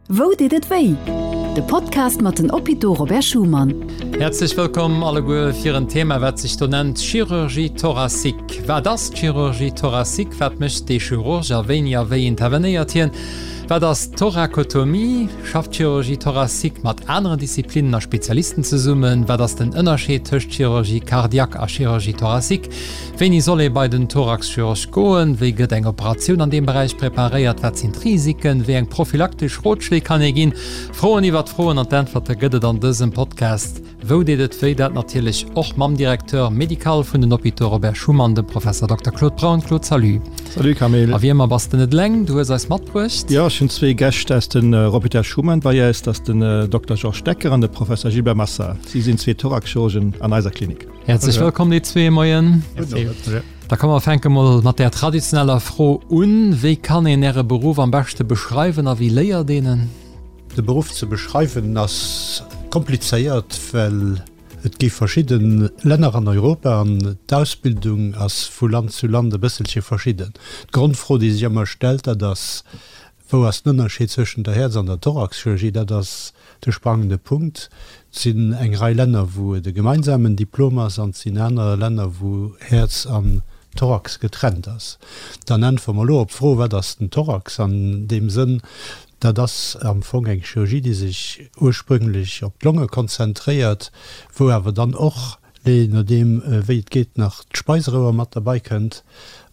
Wou deet et wéi? De Podcast mat den Hôpitaux Robert Schuman. Häerzlech wëllkomm alleguer fir en Thema wat sech do nennt Chirurgie thoracique. Wat ass d'Chirurgie thoracique? Wat mécht dee Chirurg a wéini a wéi intervenéiert hien? Wat ass d'Thorakotomie? Schafft d'Chirurgie thoracique mat aneren Disziplinnen a Spezialisten zesummen? Wat ass den Ënnerscheed tëscht Chirurgie cardiaque a Chirurgie thoracique? Wéini soll ee bei den Thoraxchirurg goen? Wéi gëtt eng Operatioun an deem Beräich preparéiert? Wat sinn d'Risiken? Wéi eng prophylaktesch Rotschléi kann ee ginn? Froen iwwert Froen an d'Äntwerte gëtt et an dësem Podcast Wou deet et wéi? Dat natierlech och mam Directeur médical vun den Hôpitaux Robert Schuman, dem Professor Dokter Claude Braun. Claude, salut. Salut Camille. A wéi ëmmer bass de net eleng, du hues eis matbruecht. Jo, ech hunn zwee Gäscht aus den Hôpital Schuman bei eis. Dat ass den Dokter Georges Decker an de Professor Gilbert Massard. Si sinn zwee Thoraxchirurgen an eiser Klinik. Häerzlech wëllkomm déi zwee, Moien. Da komm mer fänke mol mat där traditioneller Fro un, Wéi kann een Äre Beruff am beschte beschreiwen a wéi léiert een en? De Beruff ze beschreiwen ass komplizéiert, well et gi verschidde Länner an Europa an d'Ausbildung ass vu Land zu Land e bësselche verschidden. D'Grondfro, déi sech ëmmer stellt, dat ass, Wou ass den Ënnerscheed zwëschen der Häerz an der Thoraxchirurgie? Dat ass de sprangende Punkt. Et sinn eng Rei Länner, wou et e gemeinsamen Diplom ass, an et sinn aner Länner, wou Häerz an Thorax getrennt ass. Dann äntwere mer elo op d'Fro, Wat ass den Thorax an deem Sënn? Dat ass am Fong eng Chirurgie, déi sech ursprünglech op d'Longe konzentréiert, wou awer dann och je nodeem wéi et geet, nach d'Speiserouer mat derbei kënnt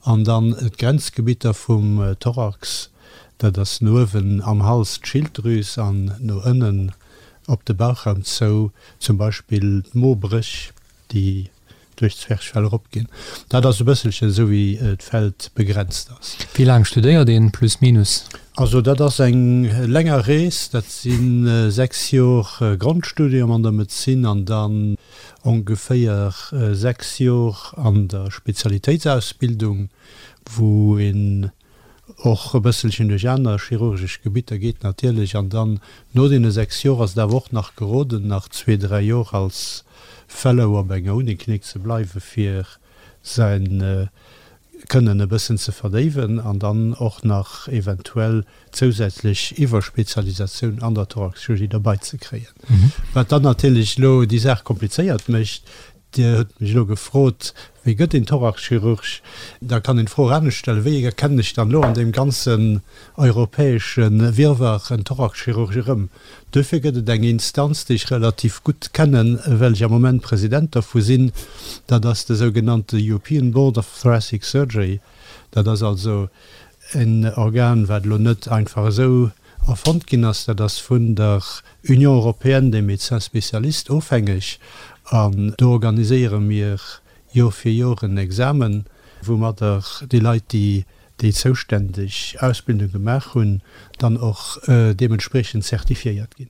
an dann d'Grenzgebitter vum Thorax, dat ass no uewen am Hals d'Schilddrüs an no ënnen op de Bauchraum zou zum Beispill d'Mobréch, déi duerch d'Zwerchfell eropginn. Dat ass e bësselchen esou wéi d'Feld begrenzt ass. Wéi laang studéiert een, plus minus? Also dat ass eng länger Rees, dat si 6 Jor Grondstudium an der Medezin an dann ongeféier 6 Jor an der Spezialitéitsausbildung, wou een och e bësselchen duerch aner chirurgesch Gebitter geet natierlech. An dann no deene 6 Jor ass et awer och nach geroden, nach zwee, dräi Jor als Fellow op enger Uniklinik ze bleiwen, fir säin Kënnen e bëssen ze verdéiwen an dann och nach eventuell zousätzlech Iwwerspezialisatioun an der Thoraxchirurgie derbei ze kréien. Wat dann natierlech elo déi Saach komplizéiert mécht, Dir hutt mech elo gefrot, Wéi gëtt een Thoraxchirurg? Da kann een d'Fro och anescht stellen, Wéi erkennen ech dann elo an deem ganzen europäesche Wirrwarr en Thoraxchirurg erëm? Duerfir gëtt et eng Instanz, déi ech relativ gutt kennen, well ech am Moment President dervu sinn, dat ass de sougenannte European Board of Thoracic Surgery. Dat ass also en Organ, wat elo net einfach esou erfonnt ginn ass, dat ass vun der Union européenne des médecins spécialistes ofhängeg an do organiséiere mir Jor fir Jor en Examen, woumadder déi Leit, déi déi zouständeg Ausbildung gemaach hunn, dann och deementspriechend zertifiéiert ginn.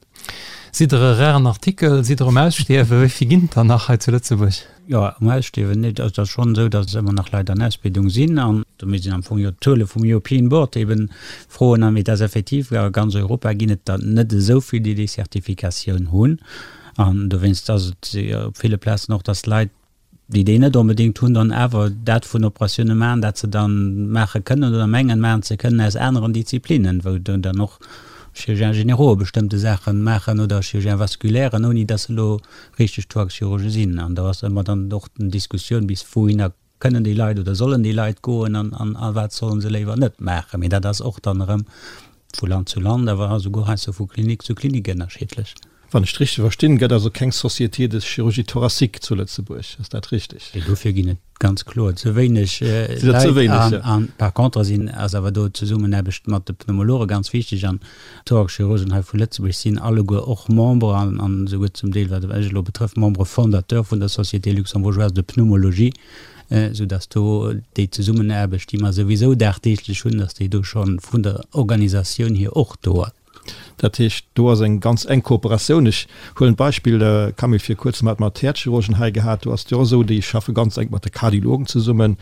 Sidd Der e raren Artikel? Sidd Der um Ausstierwen? Wéi vill ginn et der nach hei zu Lëtzebuerg? Jo, um Ausstierwen net. Also et ass schonn esou, datt ëmmer nach Leit an Ausbildung sinn an do misst een am Fong jo d'Zuele vum European Board eben froen. Mee et ass effektiv, a ganz Europa ginn et der net esou vill, déi déi Zertifikatioun hunn. An dowéinst ass et op ville Plazen och, datt Leit, déi déi net onbedéngt hunn, dann awer dat vun Operatioune maachen, dat se dann maache kënnen oder mengen maachen ze kënnen aus aneren Disziplinen, wou dann och Chirurgiens généraux bestëmmte Saache maachen oder Chirurgiens vasculairen, ouni datt se elo richteg Thoraxchirurge sinn. An do ass ëmmer dann och d'Diskussioun, bis wouhinner kënnen déi Leit oder sollen déi Leit goen an a wat sollen se léiwer net maachen. Mee dat ass och dann erëm vu Land zu Land, awer esouguer heiansdo vu Klinik zu Klinik ënnerschiddlech. Wann ech et richteg verstinn, gëtt also keng Société de chirurgie thoracique zu Lëtzebuerg. Ass dat richteg? Nee, dofir ginn et ganz kloer ze wéineg Leit. An par contre sinn, ass awer do d'Zesummenaarbecht mat de Pneumologe ganz wichteg. An d'Thoraxchirurgen hei vu Lëtzebuerg sinn alleguer och Member an esouguer zum Deel, wat mech elo betrëfft, Membre fondateur vun der Société luxembourgeoise de pneumologie, soudass do déi Zesummenaarbecht, déi mer souwisou dagdeeglech hunn, dass déi do scho vun der Organisatioun hier och do ass. Dat heescht, do ass eng ganz enk Kooperatioun. Ech huelen d'Beispill, Camille, vir kuerzem hate mer d'Häerzchirurgen hei gehat, do ass et jo och esou, déi schaffe ganz enk mat de Kardiologen zesummen.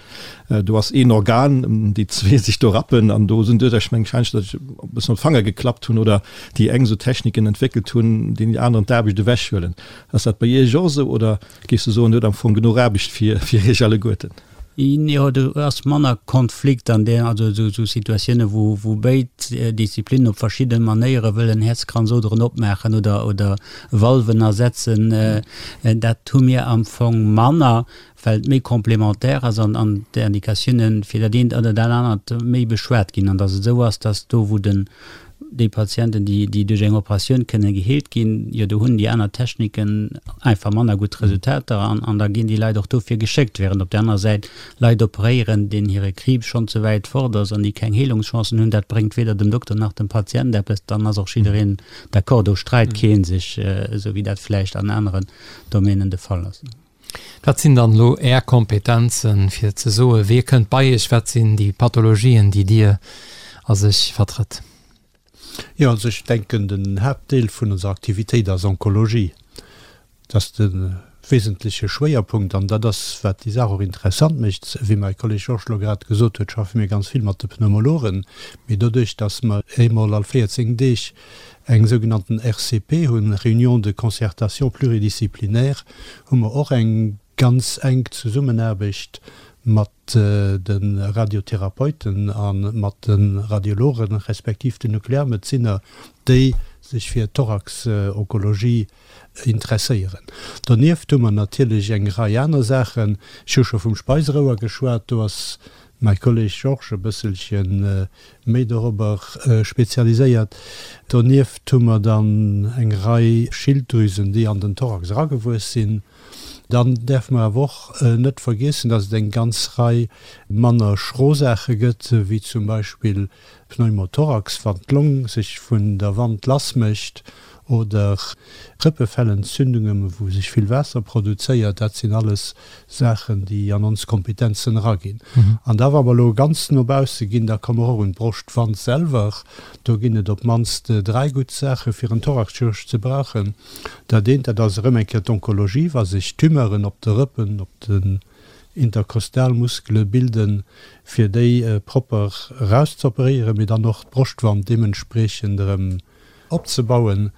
Do ass een Organ, déi zwee sech do rappen an do sinn duerch, ech mengen, wahrscheinlech, datt ech e bëssen op d'Fanger geklappt hunn oder déi eng esou Techniken entwéckelt hunn, déi déi aneren d'Aarbecht ewechhuelen. Ass dat bei Iech och esou oder géifs du soen, Dir hutt am Fong genuch Aarbecht fir Iech alleguerten? Jo, do ass manner Konflikt an där, also esou Situatioune wou wou béid Disziplinnen op verschidde Manéiere wëllen Häerzkranzoderen opmaachen oder oder Valven ersetzen, dat hu mir am Fong manner, well et méi complémentaire ass an an d'Indikatioune fir dat eent oder dat anert méi beschwat ginn an datt et esou ass, datt do wou den Déi Patienten, déi, déi duerch eng Operatioun kënnen geheelt ginn, jo do hunn déi aner Techniken einfach manner gutt Resultater an, an da ginn déi Leit och dofir geschéckt, während op där anerer Säit Leit operéieren, deenen hire Kriibs schonn ze wäit fort ass an déi keng Heelungschancen hunn. Dat bréngt weder dem Dokter nach dem Patient eppes. Dann ass och jiddereen d'accord, do streit kee sech, esou wéi dat vläicht an aneren Domänen de Fall ass. Wat sinn dann elo Är Kompetenzen, fir ze soen, wie kënnt bei Iech, wat sinn déi Pathologien, déi Dir a sech vertrëtt? Jo, also ech denken, den Haaptdeel vun onser Aktivitéit ass Onkologie. Dat ass de wesentleche Schwéierpunkt an dat ass, wat déi Saach och interessant mécht. Wéi mäi Kolleg Georges elo grad gesot huet, schaffe mir ganz vill mat de Pneumologen, mee doduerch, datt mer eemol all 14 Deeg eng sougenannten RCP hunn, Réunion de concertation pluridisciplinaire, hu mer och eng ganz enk Zesummenaarbecht mat de Radiotherapeuten a mat de Radiologen, respektiv den Nuklearmedezinner, déi sech fir d'Thorax-Onkologie interesséieren. Donieft hu mer natierlech eng Rei aner Saachen. Ech hu scho vum Speiserouer geschwat, do ass mäi Kolleg Georges e bësselche méi dorobber spezialiséiert. Donieft hu mer dann eng Rei Schilddrüsen, déi an den Thorax eragewuess sinn. Dann däerfe mer awer och net vergiessen, dass et eng ganz Rei manner schro Saache gëtt, wéi zum Beispill Pneumothorax, wann d'Long sech vun der Wand lass mécht, oder Rëppefellentzündungen, wou sech vill Waasser produzéiert. Dat sinn alles Saachen, déi an ons Kompetenzen eraginn. An da wa mer elo ganz no bausse ginn, da komme mer och un d'Broschtwand selwer. Do ginn et op d'mannst 3 gutt Saache fir en Thoraxchirurg ze brauchen. Dat eent, dat ass erëm eng Kéier d'Onkologie, wa sech Tumeuren op de Rëppen, op den Interkostalmuskele bilden, fir déi propper erauszeoperéieren, mee dann och d'Broschtwand deementspriechend erëm opzebauen.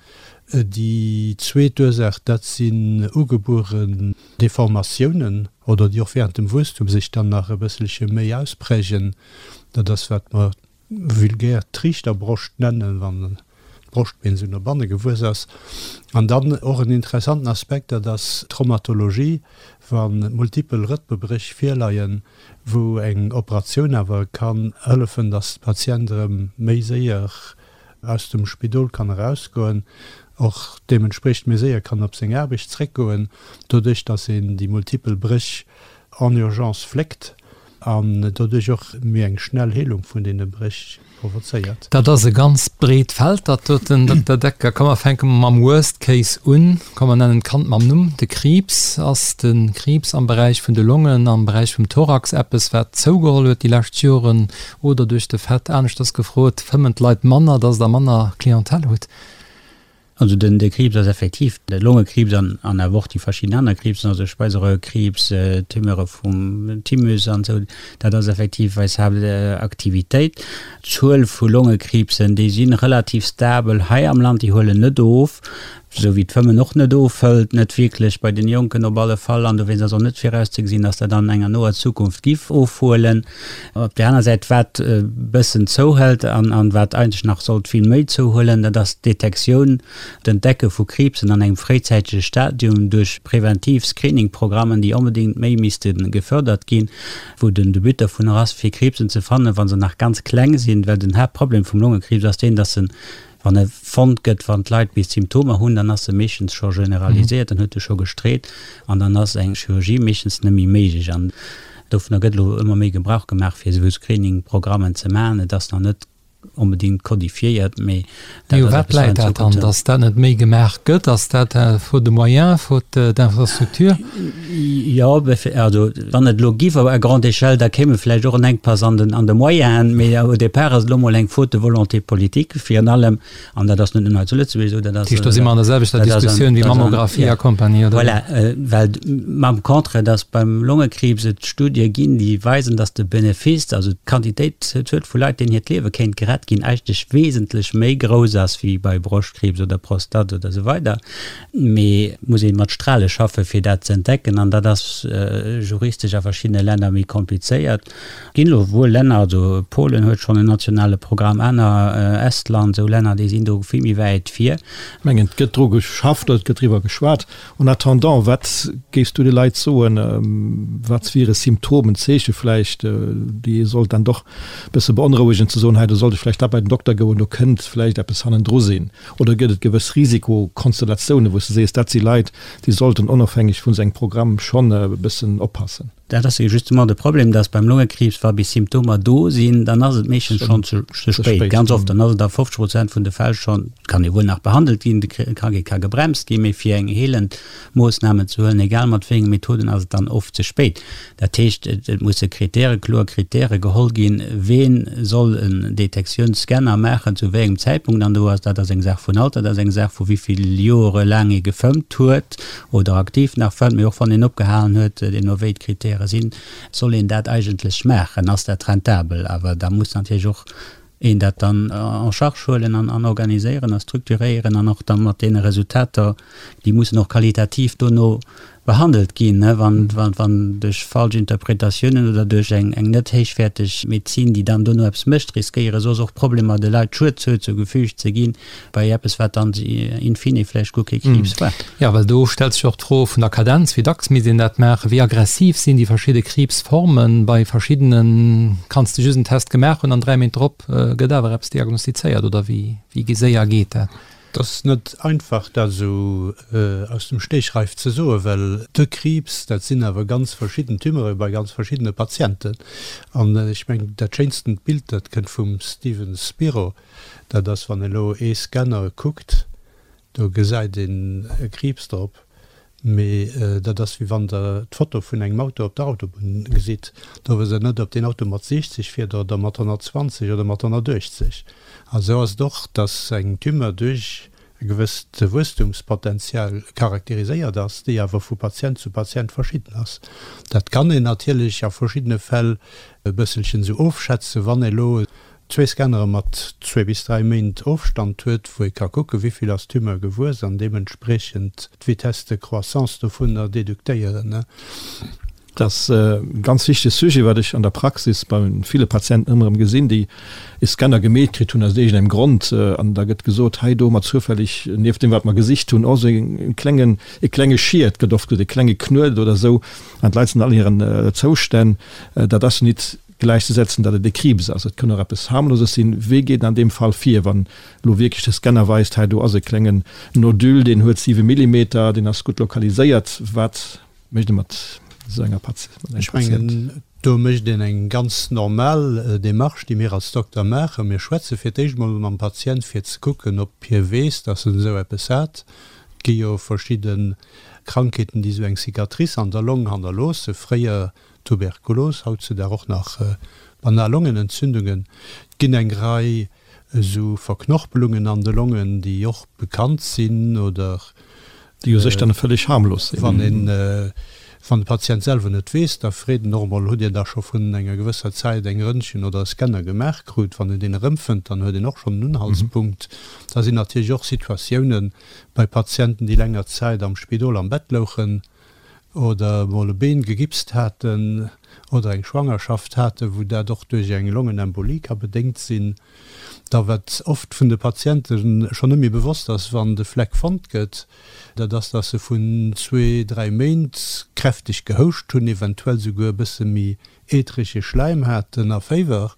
Déi zweet Ursaach, dat sinn ugebueren Deformatiounen oder déi och während dem Wuesstum sech dann nach e bësselche méi ausprägen. Dat ass, wat mer vulgär d'Triichterbroscht nennen, wann d'Broschtbeen esou no banne gewuess ass. An dann och en interessanten Aspekt, dat ass d'Traumatologie, wa multipel Rëppebréch virleien, wou eng Operatioun awer kann hëllefen, dass de Patient erëm méi séier aus dem Spidol kann erausgoen, och deementspriechend méi séier kann op seng Aarbecht zréckgoen, doduerch datt een déi multipel Bréch en urgence fléckt an doduerch och méi eng schnell Heelung vun deene Bréch provozéiert. Dat ass e ganz breet Feld, dat doten, Dokter Decker. Komm mer fänke mam Worst Case un. Komm mer nennen d'Kand mam Numm, de Kriibs. Ass de Kriibs am Beräich vun de Longen, am Beräich vum Thorax eppes, wat zougeholl huet déi lescht Joren? Oder duerch de Fait, aneschters gefrot, fëmmen d'Leit manner, dass Der manner Clientèle hutt? Also den de Kriibs ass effektiv, de Longekriibs an an awer och déi verschidden aner Kriibsen, also Speiseröhrkriibs, Tumeure vum Thymus an esou, dat ass effektiv eis Haaptaktivitéit. D'Zuel vu Longekriibsen, déi si relativ stabel hei am Land, déi huelen net of. Esou wéi d'Fëmmen och net ofhëlt, net wierklech, bei den Jonken op alle Fall, an dowéinst ass och net virauszegesinn, dass dat an enger noer Zukunft giff ofhuelen. Op där aner Säit, wat e bëssen zouhëlt an an wat eigentlech nach sollt vill méi zouhuelen, dat ass d'Detektioun, d'Entdecke vu Kriibsen an engem fréizäitege Stadium duerch präventiv Screeningprogrammen, déi onbedéngt méi misste gefördert ginn, wou den de But dovunner ass, fir Kriibsen ze fannen, wa se nach ganz kleng sinn, well den Haaptproblem vum Longekriibs ass deen, dass en Wann e fonnt gëtt, wann d'Leit bis d'Symptomer hunn, dann ass e meeschtens scho generaliséiert, dann huet e scho gestreet an dann ass eng Chirurgie meeschtens net méi méiglech. An dovunner gëtt elo ëmmer méi Gebrauch gemaach, fir esou Screening-Programmen ze maachen. Et ass nach net onbedéngt kodifiéiert, mee dat ass eppes, wat an Zukunft. Dann, datt dat net méi gemaach gëtt? Ass dat faute de moyens, faute d'infrastructure? Jo, also wann et elo giff à grande échelle, da kéim e vläicht och en Enkpass an den, an de Moyenen. Mee au départ ass et elo mol eng Faute de volonté politique virun allem, an dat ass net nëmmen hei zu Lëtzebuerg esou, dat ass. Dat heescht, do si mer an der selwechter Diskussioun wéi Mammographie a Kompanie, oder? Voilà, well mam Contraire, dass beim Longekriibs et Studie ginn, déi weisen, dass de Benefice, also d'Quantitéit, d'Zuel vu Leit, deenen hiert Liewe kéint gerett. Zigarett ginn, eigentlech wesentlech méi grouss ass wéi bei Broschtkriibs oder Prostate oder esou weider. Mee et muss ee mat Strale schaffe fir dat ze entdecken an dat ass juristesch a verschiddene Länner méi komplizéiert. Et ginn elo wuel Länner, also Polen huet schonn en nationale Programm, aner, Estland, esou Länner, déi sinn do vill méi wäit vir. Ech mengen, et gëtt dru geschafft oder et gëtt driwwer geschwat. En attendant, wat géifs du de Leit soen, wat wiere Symptomen, Zeeche vläicht, déi ee sollt dann doch e bësse beonrouegen, ze soen, hei do sollt ech vläicht da bei den Dokter goen, do kënnt vläicht eppes hannendru sinn? Oder gëtt et gewëss Risikokonstellatiounen, wou s de sees, dat si Leit, déi sollten onofhängeg vun esou engem Programm schonn e bëssen oppassen? Dat ass jo justement de Problem, dass beim Longekriibs, wa bis Symptomer do sinn, dann ass et meeschtens schonn ze spéit, ganz oft. Dann ass et a 50 Prozent vun de Fäll schonn, kann e wuel nach behandelt ginn, de Krankheet ka gebremst ginn, mee fir eng heelend Moossnamen ze huelen, egal mat wéi enge Methoden, ass et dann oft ze spéit. Dat heescht, et musse Kritäre, kloer Kritäre geholl ginn, ween soll en Detektiounsscanner maachen, zu wéi engem Zäitpunkt. An do ass, dat ass eng Saach vun Alter, dat ass eng Saach vu wéi vill Jore laang ee gefëmmt huet, oder aktiv nach fëmmt, mee och wann een opgehalen huet, deemno wéi d'Kritäre sinn, soll een dat eigentlech maachen, ass dat rentabel. Awer da muss natierlech och een dat dann en charge huelen an organiséieren a structuréieren an och da mat deene Resultater, déi mussen och qualitativ dono behandelt ginn, wann duerch falsch Interpretatiounen oder duerch eng net héichwäerteg Medezin, déi dann dono eppes mécht, riskéiere soss och Problemer de Leit Schued zougefügt ze ginn. Bei eppes, wat dann in fine vläicht guer kee Kriibs war. Jo, well do stellt sech och d'Fro vun der Kadenz, wéi dacks misst een dat maachen, wéi aggressiv sinn déi verschidde Kriibsformen. Bei verschiddene kanns de just en Test gemaach hunn an 3 Méint drop gëtt awer eppes diagnostizéiert, oder wéi séier geet dat? Et ass net einfach, dat esou aus dem Stegreif ze soen, well de Kriibs, dat sinn awer ganz verschidden Tumeure bei ganz verschiddene Patienten. An ech mengen, dat schéinstent Bild, dat kënnt vum Steven Spiro, Dat ass, wann een elo ee Scanner kuckt, do gesäit een e Kriibs drop, mee dat ass wéi wann Der d'Foto vun engem Auto op der Autobunn gesitt. Do wësst Der net, ob deen Auto mat 60 fiert oder mat 120 oder mat 180. A sou ass et och, dass eng Tumeur duerch e gewësst Wuesstumspotenzial charakteriséiert ass, déi awer vu Patient zu Patient verschidden ass. Dat kann een natierlech a verschiddene Fäll e bësselchen esou ofschätzen, wann ee elo zwee Scannere mat zwee bis dräi Méint Ofstand huet, wou ee ka kucken, wéi vill ass d'Tumeur gewuess an deementspriechend d'Vitesse de croissance dovunner deduktéieren. Dat ass e ganz wichtege Sujet, wat ech an der Praxis bei ville Patienten ëmmer erëm gesinn, déi e Scanner gemeet kritt hunn aus iergendengem Grond. An da gëtt gesot, hei do hu mer zoufälleg nieft deem, wat mer gesicht hunn, och esou e klengen, e klenge Schiet, gëtt oft gesot, e klenge Knuet oder esou. An d'Leit sinn all hiren Zoustänn. Dat ass nit gläichzesetzen, datt et e Kriibs ass. Et kënn och eppes Harmloses sinn. Wéi geet een an deem Fall vir, wann elo wierklech de Scanner weist, hei do ass e klengen Nodule, deen huet 7 Millimeter, deen ass gutt lokaliséiert. Wat mécht ee mat esou enger Patient? Ech mengen, do mécht een eng ganz normal Démarche, déi mir als Dokter maachen. Mir schwätze fir d'éischt emol mam Patient, fir ze kucken, ob hie weess, datt en esou eppes hat. Et gi jo verschidde Krankheeten, déi esou eng Cicatrice an der Long hannerloossen. Fréier Tuberkulos, hautzudag och nach banal Longenentzündungen. Et ginn eng Rei esou Verknorpelungen an de Longen, déi och bekannt sinn oder. Déi u sech dann vëlleg harmlos sinn. Wann een, wann de Patient selwer net weess, da freet en och emol, Hutt Dir da scho vun enger gewësser Zäit eng Röntgen oder e Scanner gemaach krut? Wann en deen erëmfënnt, dann huet een och schonn en Unhaltspunkt. Da sinn natierlech och Situatiounen bei Patienten, déi länger Zäit am Spidol am Bett louchen, oder emol e Been gegipst haten oder eng Schwangerschaft haten, wou dat och duerch eng Longenembolie ka bedéngt sinn. Da wat oft vun de Patiente schonn net méi bewosst ass, wann de Fleck fonnt gëtt, dat ass, dass se vun zwee, dräi Méint kräfteg gehouscht hunn, eventuell souguer e bësse méi ätherege Schläim haten a Féiwer.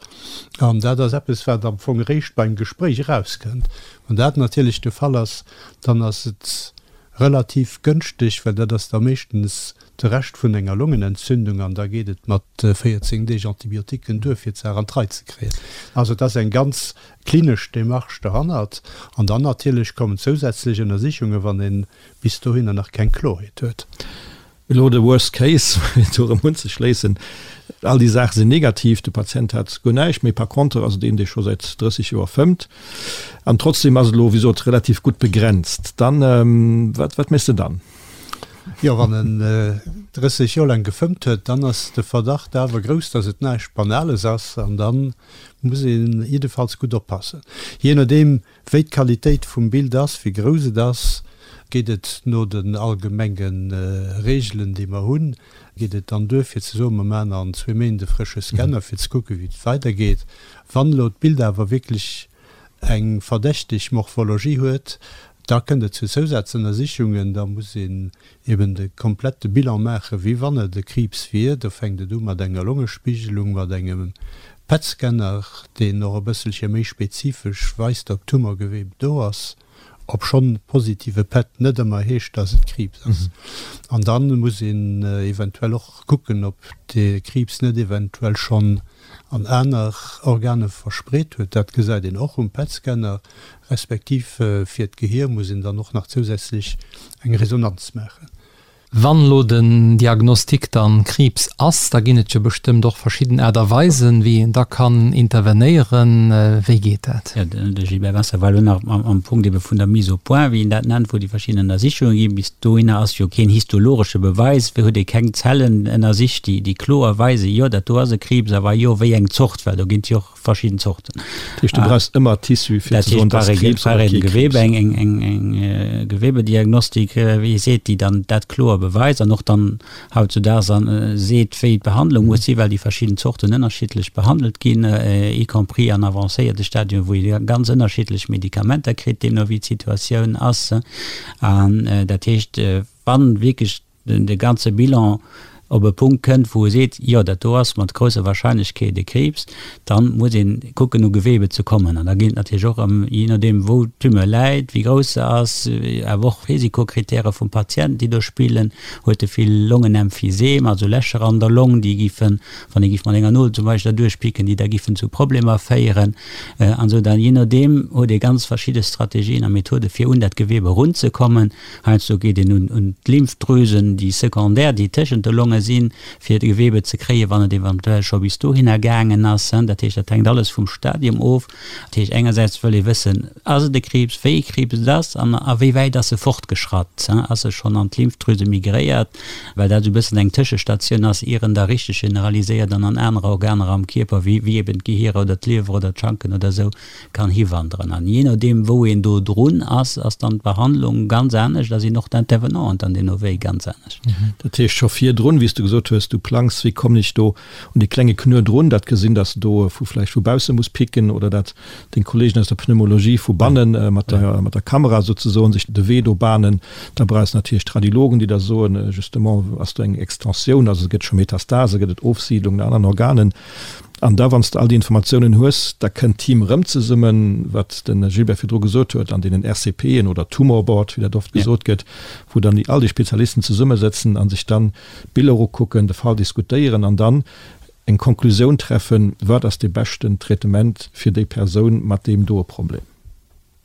An dat ass eppes, wat am Fong eréischt beim Gespréich erauskënnt. Wann dat natierlech de Fall ass, dann ass et Relativ gënschteg, well dat ass da meeschtens de Rescht vun enger Longenentzündung an da geet et mat 14 Deeg Antibiotiquen duer fir d'Saach an d'Rei ze kréien. Also et ass eng ganz klinesch Demarche derhannert an dann natierlech kommen zousätzlech Ënnersichungen, wann ee bis dohinner nach keng Klorheet huet. Elo de Worst Case, fir do erëm unzeschléissen, All déi Saache sinn negativ, de Patient hat guer näischt méi. Par contre ass et een, dee scho säit 30 Joer fëmmt an trotzdem ass et elo, wéi sot, relativ gutt begrenzt. Dann, wat, wat méchs de dann? Jo, wann en 30 Joer laang gefëmmt huet, dann ass de Verdacht awer grouss, dass et näischt Banales ass an da muss ee jiddefalls gutt oppassen. Jee nodeem wéi d'Qualitéit vum Bild ass, wéi grouss et ass, geet et no den allgemenge Reegelen, déi mer hunn, geet et dann duer fir ze soen, mer maachen an zwee Méint e frësche Scanner fir ze kucken, wéi et weidergeet. Wann elo d'Bild awer wierklech eng verdächteg Morphologie huet, da kënnt et zu Zousazënnersichungen, da muss een eben de komplette Bilan maachen, wéi wann et e Kriibs wier. Do fänkt et u mat enger Longespiegelung, mat engem PET-Scanner, deen och e bësselche méi spezifesch weist, ob Tumorgewebe do ass, obschonn positive PET net ëmmer heescht, dass et Kriibs ass. An da muss een eventuell och kucken, ob de Kriibs net eventuell schonn an aner Organe verspreet huet. Dat gesäit een och um PET-Scanner. Respektiv fir d'Gehier muss een dann och nach zousätzlech eng Resonanz maachen. Wann elo den Diagnostic dann Kriibs ass, da ginn et jo bestëmmt och verschidden Aart a Weisen, wéi een da kann intervenéieren. Wéi geet dat? Jo, de Gilbert Wasser war elo nach am Punkt ebe vun der Mise au point, wéi een dat nennt, wou déi verschidden Ënnersichunge ginn. Bis dohinner ass jo keen histologesche Beweis, huet ee keng Zellen ënnersicht, déi kloer weisen, jo dat do ass e Kriibs, a wa jo, wéi eng Zort, well do ginn et jo och verschidden Zorten. Dat heescht, du brauchs ëmmer Tissu fir ze soen, dass Kriibs oder kee Kriibs. Eng, eng, eng, eng Gewebediagnostik, wéi ee seet, déi dann dat kloer beweist an och dann hautzudaags an seet, wéi d'Behandlung muss sinn, well déi verschidden Zorten ënnerschiddlech behandelt ginn, y compris an avancéierte Stadien, wou ee ganz ënnerschiddlech Medikamenter kritt, deemno wéi d'Situatioun ass. An dat heescht, wann wierklech de ganze Bilan op e Punkt kënnt, wou e seet, jo dat do ass mat grousser Wahrscheinlechkeet e Kriibs, da muss ee kucken u Gewebe ze kommen. An da geet et natierlech och ëm, jee nodeem wou d'Tumeur läit, wéi grouss se ass, awer och Risikokritäre vum Patient, déi do spillen. Huet e vill Longenemphysem, also Lächer an der Long, déi giffen, wann ee giff mat enger Nol zum Beispill derduerch picken, déi da giffen zu Problemer féieren an esou. Dann, jee nodeem huet ee ganz verschidde Strategien a Methode fir un dat Gewebe erunzekommen. Heiansdo geet een un d'Lymphdrüsen, déi secondaire, déi tëschent de Longe sinn, fir d'Gewebe ze kréien, wann et eventuell scho bis dohinner gaangen ass. Dat heescht, dat hänkt alles vum Stadium of. Dat heescht, engersäits wëll ee wëssen, Ass et e Kriibs, wéi ee Kriibs et ass an a wéi wäit ass e fortgeschratt? Ass e schonn an d'Lymphdrüse migréiert? Well dat esou e bëssen eng Tëschestatioun ass, ier en da richteg generaliséiert an an aner Organer am Kierper, wéi eben d'Gehier oder d'Liewer oder d'Schanken oder esou, kann hiwanderen. An jee nodeem wou een do drun ass, ass dann d'Behandlung ganz anescht a sinn och d'Intervenanten dann deemno wéi ganz anescht. Dat heescht scho virdrun, wéi s du gesot hues, du plangs, wéi kommen ech do un dee klenge Knuer drun, dat gesinn, dass de do vu vläicht vu bausse muss picken oder dat deng Kollegen aus der Pneumologie vu banne mat der mat der Kamera souzesoen sech de Wee do bahnen. Da brauchs natierlech d'Radiologen, déi da soen, justement ass do eng Extensioun, also gëtt scho Metastase, gëtt et Ofsiidlung an aneren Organen. An da, wann s de all déi Informatiounen hues, da kënnt d'Team erëm zesummen, wat de Gilbert virdru gesot huet, an deenen RCPen oder Tumor Board, wéi dat oft gesot gëtt, wou dann déi all déi Spezialisten zesummesëtzen a sech dann d'Biller ukucken, de Fall diskutéieren an dann eng Konklusioun treffen, wat ass dee beschten Traitement fir déi Persoun mat deem doe Problem.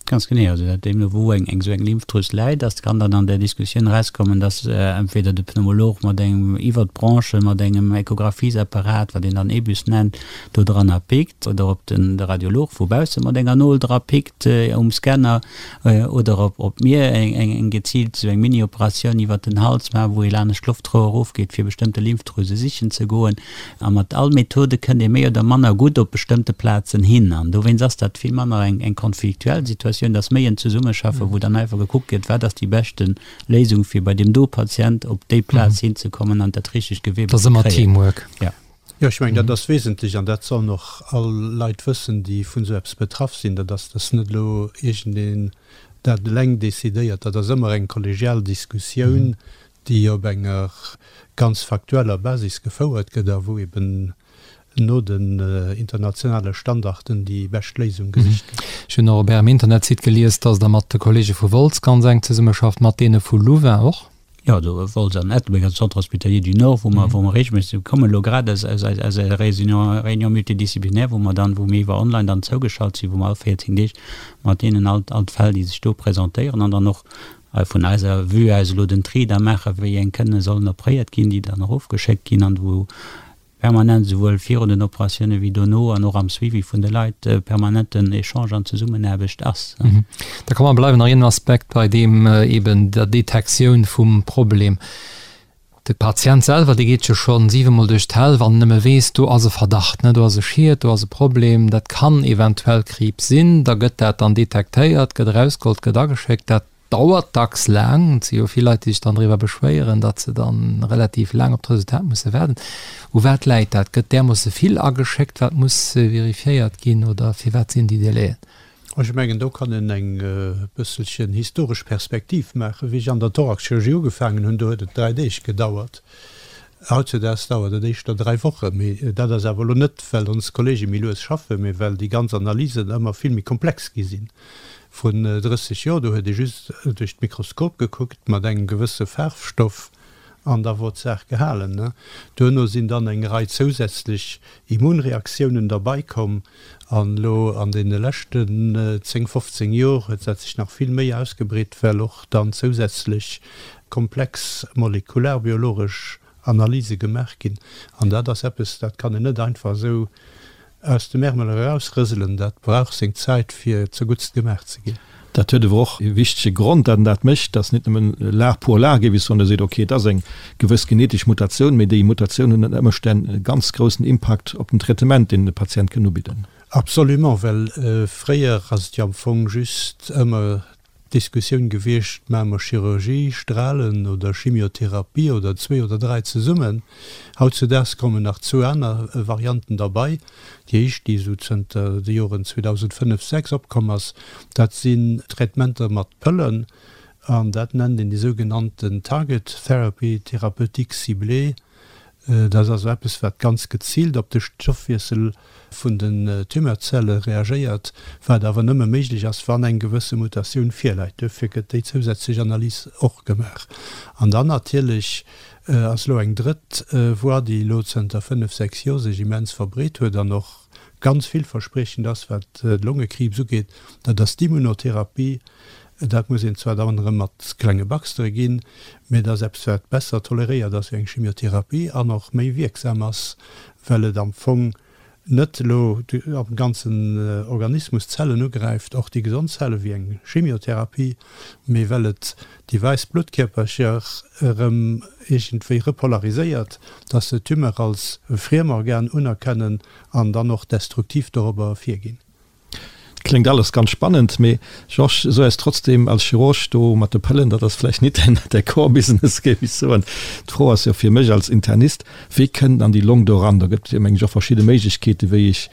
Ganz genee. Also dat deemno wou eng esou eng Lymphdrüs läit, ass, kann dann an där Diskussioun erauskommen, dass entweder de Pneumolog mat engem iwwer d'Bronchen, mat engem Echographiesapparat, wat een dann EBUS nennt, do dranner pickt, oder ob den de Radiolog vu bausse mat enger Nol dra pickt um Scanner, oder ob ob mir eng eng geziilt esou eng Mini-Operatioun iwwer den Hals maachen, wou ee lanescht d'Loftrouer erofgeet, fir bestëmmte Lymphdrüse sichen ze goen. A mat all Methode kënnt ee méi oder manner gutt op bestëmmte Plazen hin. An dowéinst ass dat vill manner eng, eng konfliktuell Situatioun, et ass méi en Zesummeschaffen, wou dann einfach gekuckt gëtt, wat ass déi beschte Léisung, fir bei deem do Patient op déi Plaz hinzekommen an dat richtegt Gewebe ze kréien. Dat ass ëmmer Teamwork. Ja. Jo, ech mengen, dat ass wesentlech an dat sollen och all Leit wëssen, déi vun esou eppes betraff sinn, dat ass, dass net elo iergendeen dat eleng decidéiert. Dat ass ëmmer eng kollegial Diskussioun, déi op enger ganz faktueller Basis gefouert gëtt a wou eben no den internationale Standarden déi bescht Léisung gesicht gëtt. Ech hunn och op Ärem Internetsite gelies, dass Der mat de Kollege vu Wolz ganz enk zesummeschafft, mat deene vu Louvain och? Jo, do Wolz an Ettelbréck, also Centre hospitalier du Nord, wou mer, wou mer regelméisseg, mir kommen elo grad aus, aus eis, aus eiser Réunion, Réunion multidisciplinaire, wou mer dann, wou mir iwwer online dann zougeschalt sinn, wou mer all 14 Deeg mat deenen all, all d'Fäll, déi sech do presentéieren an dann och Hei vun eiser Vue aus elo den Tri da maachen, wéi eng kënne sollen opréiert ginn, déi dann erofgeschéckt ginn an wou. Permanent, esouwuel virun den Operatioune wéi dono an och am Suivi vun de Leit, permanenten Echange an Zesummenaarbecht ass. Da komm mer bleiwen nach een Aspekt bei deem eben der Detektioun vum Problem. De Patient selwer, dee geet jo scho siwemol duerch d'Häll, wann en nëmme weess, do ass e Verdacht, ne, do ass e Schiet, do ass e Problem, dat kann eventuell Kriibs sinn. Da gëtt dat dann detektéiert, gëtt erausgeholl, gëtt ageschéckt. Dat dauert dacks laang. Et si jo vill Leit, déi sech dann driwwer beschwéieren, datt se dann relativ laang op d'Resultat musse waarden. U wat läit dat? Gëtt därmoosse vill ageschéckt, wat muss vérifiéiert ginn oder firwat sinn déi Délaiën? Ech mengen, do kann een eng bësselchen historesch Perspektiv maachen. Wéi ech an der Thoraxchirurgie ugefaangen hunn, do huet et 3 Deeg gedauert. Hautzedaags dauert et éischter 3 Wochen. Mee dat ass awer elo net, well ons Kollege méi lues schaffen, mee well déi ganz Analysen ëmmer vill méi komplex gi sinn. Vrun 30 Joer, do huet ee just duerch d'Mikroskop gekuckt mat engem gewësse Faarfstoff an da wor d'Saach gehalen. Duerno sinn dann eng Rei zousätzlech Immunreaktiounen derbei komm an elo an deene leschten 10, 15 Jor huet dat sech nach vill méi ausgebreet, well och dann zousätzlech komplex molekularbiologesch Analyse gemaach ginn. An dat ass eppes, dat kann een net einfach esou aus dem Ärmel erausrëselen. Dat brauch seng Zäit, fir zerguttst gemaach ze ginn. Dat huet awer och e wichtege Grond, datt en dat mécht, datt net nëmmen Lag pour lag, géif ech soen, da seet, okay, et ass eng gewëss genetesch Mutatioun, mee déi Mutatioun huet ënner Ëmstänn e ganz groussen Impakt op den Traitement, deen de Patient kënn ubidden. Absolument, well fréier ass et jo am Fong just ëmmer d'Diskussioun gewiescht, Maache mer Chirurgie, Strahlen oder Chimiotherapie oder zwee oder dräi zesummen? Hautzudaags kommen nach zwou aner Varianten derbei. Déi éischt, déi esou zënter de Joren 2005, 6 opkomm ass, dat sinn Traitementer mat Pëllen an dat nennt een déi sougenannten Target Therapy, Thérapeutique ciblée. Dat ass also eppes, wat ganz geziilt op de Stoffwiessel vun den Tumeurzelle reagéiert, wat awer nëmme méiglech ass, wann eng gewësse Mutatioun virläit. Duerfir gëtt déi zousätzlech Analys och gemaach. An dann natierlech ass elo eng drëtt Voie, déi elo zënter fënnef, sechs Joer sech immens verbreet huet an och ganz villverspriechend ass, wat de Longekriibs ugeet, dat ass d'Immunotherapie. Dat muss een zwar dann erëm mat klenge Baxtere ginn, mee et ass eppes, wat besser toleréiert ass wéi eng Chimiotherapie an och méi wierksam ass, well et am Fong net elo am ganzen Organismus d'Zellen ugräift, och déi gesond Zelle wéi eng Chimiotherapie, mee well et déi wäiss Bluttkierpercher erëm iergendwéi repolariséiert, dass se d'Tumeur als e Friemorgan unerkennen an dann och destruktiv dorobber virginn. Kléngt alles ganz spannend, mee Georges, so eis trotzdem als Chirurg do mat de Pëllen, dat ass vläicht nit däi Core Business, géif ech soen. D'Fro ass jo fir mech als Internist, Wéi kënnt an déi Long do eran? Do gëtt jo meng ech och verschidde Méiglechkeeten, wéi ech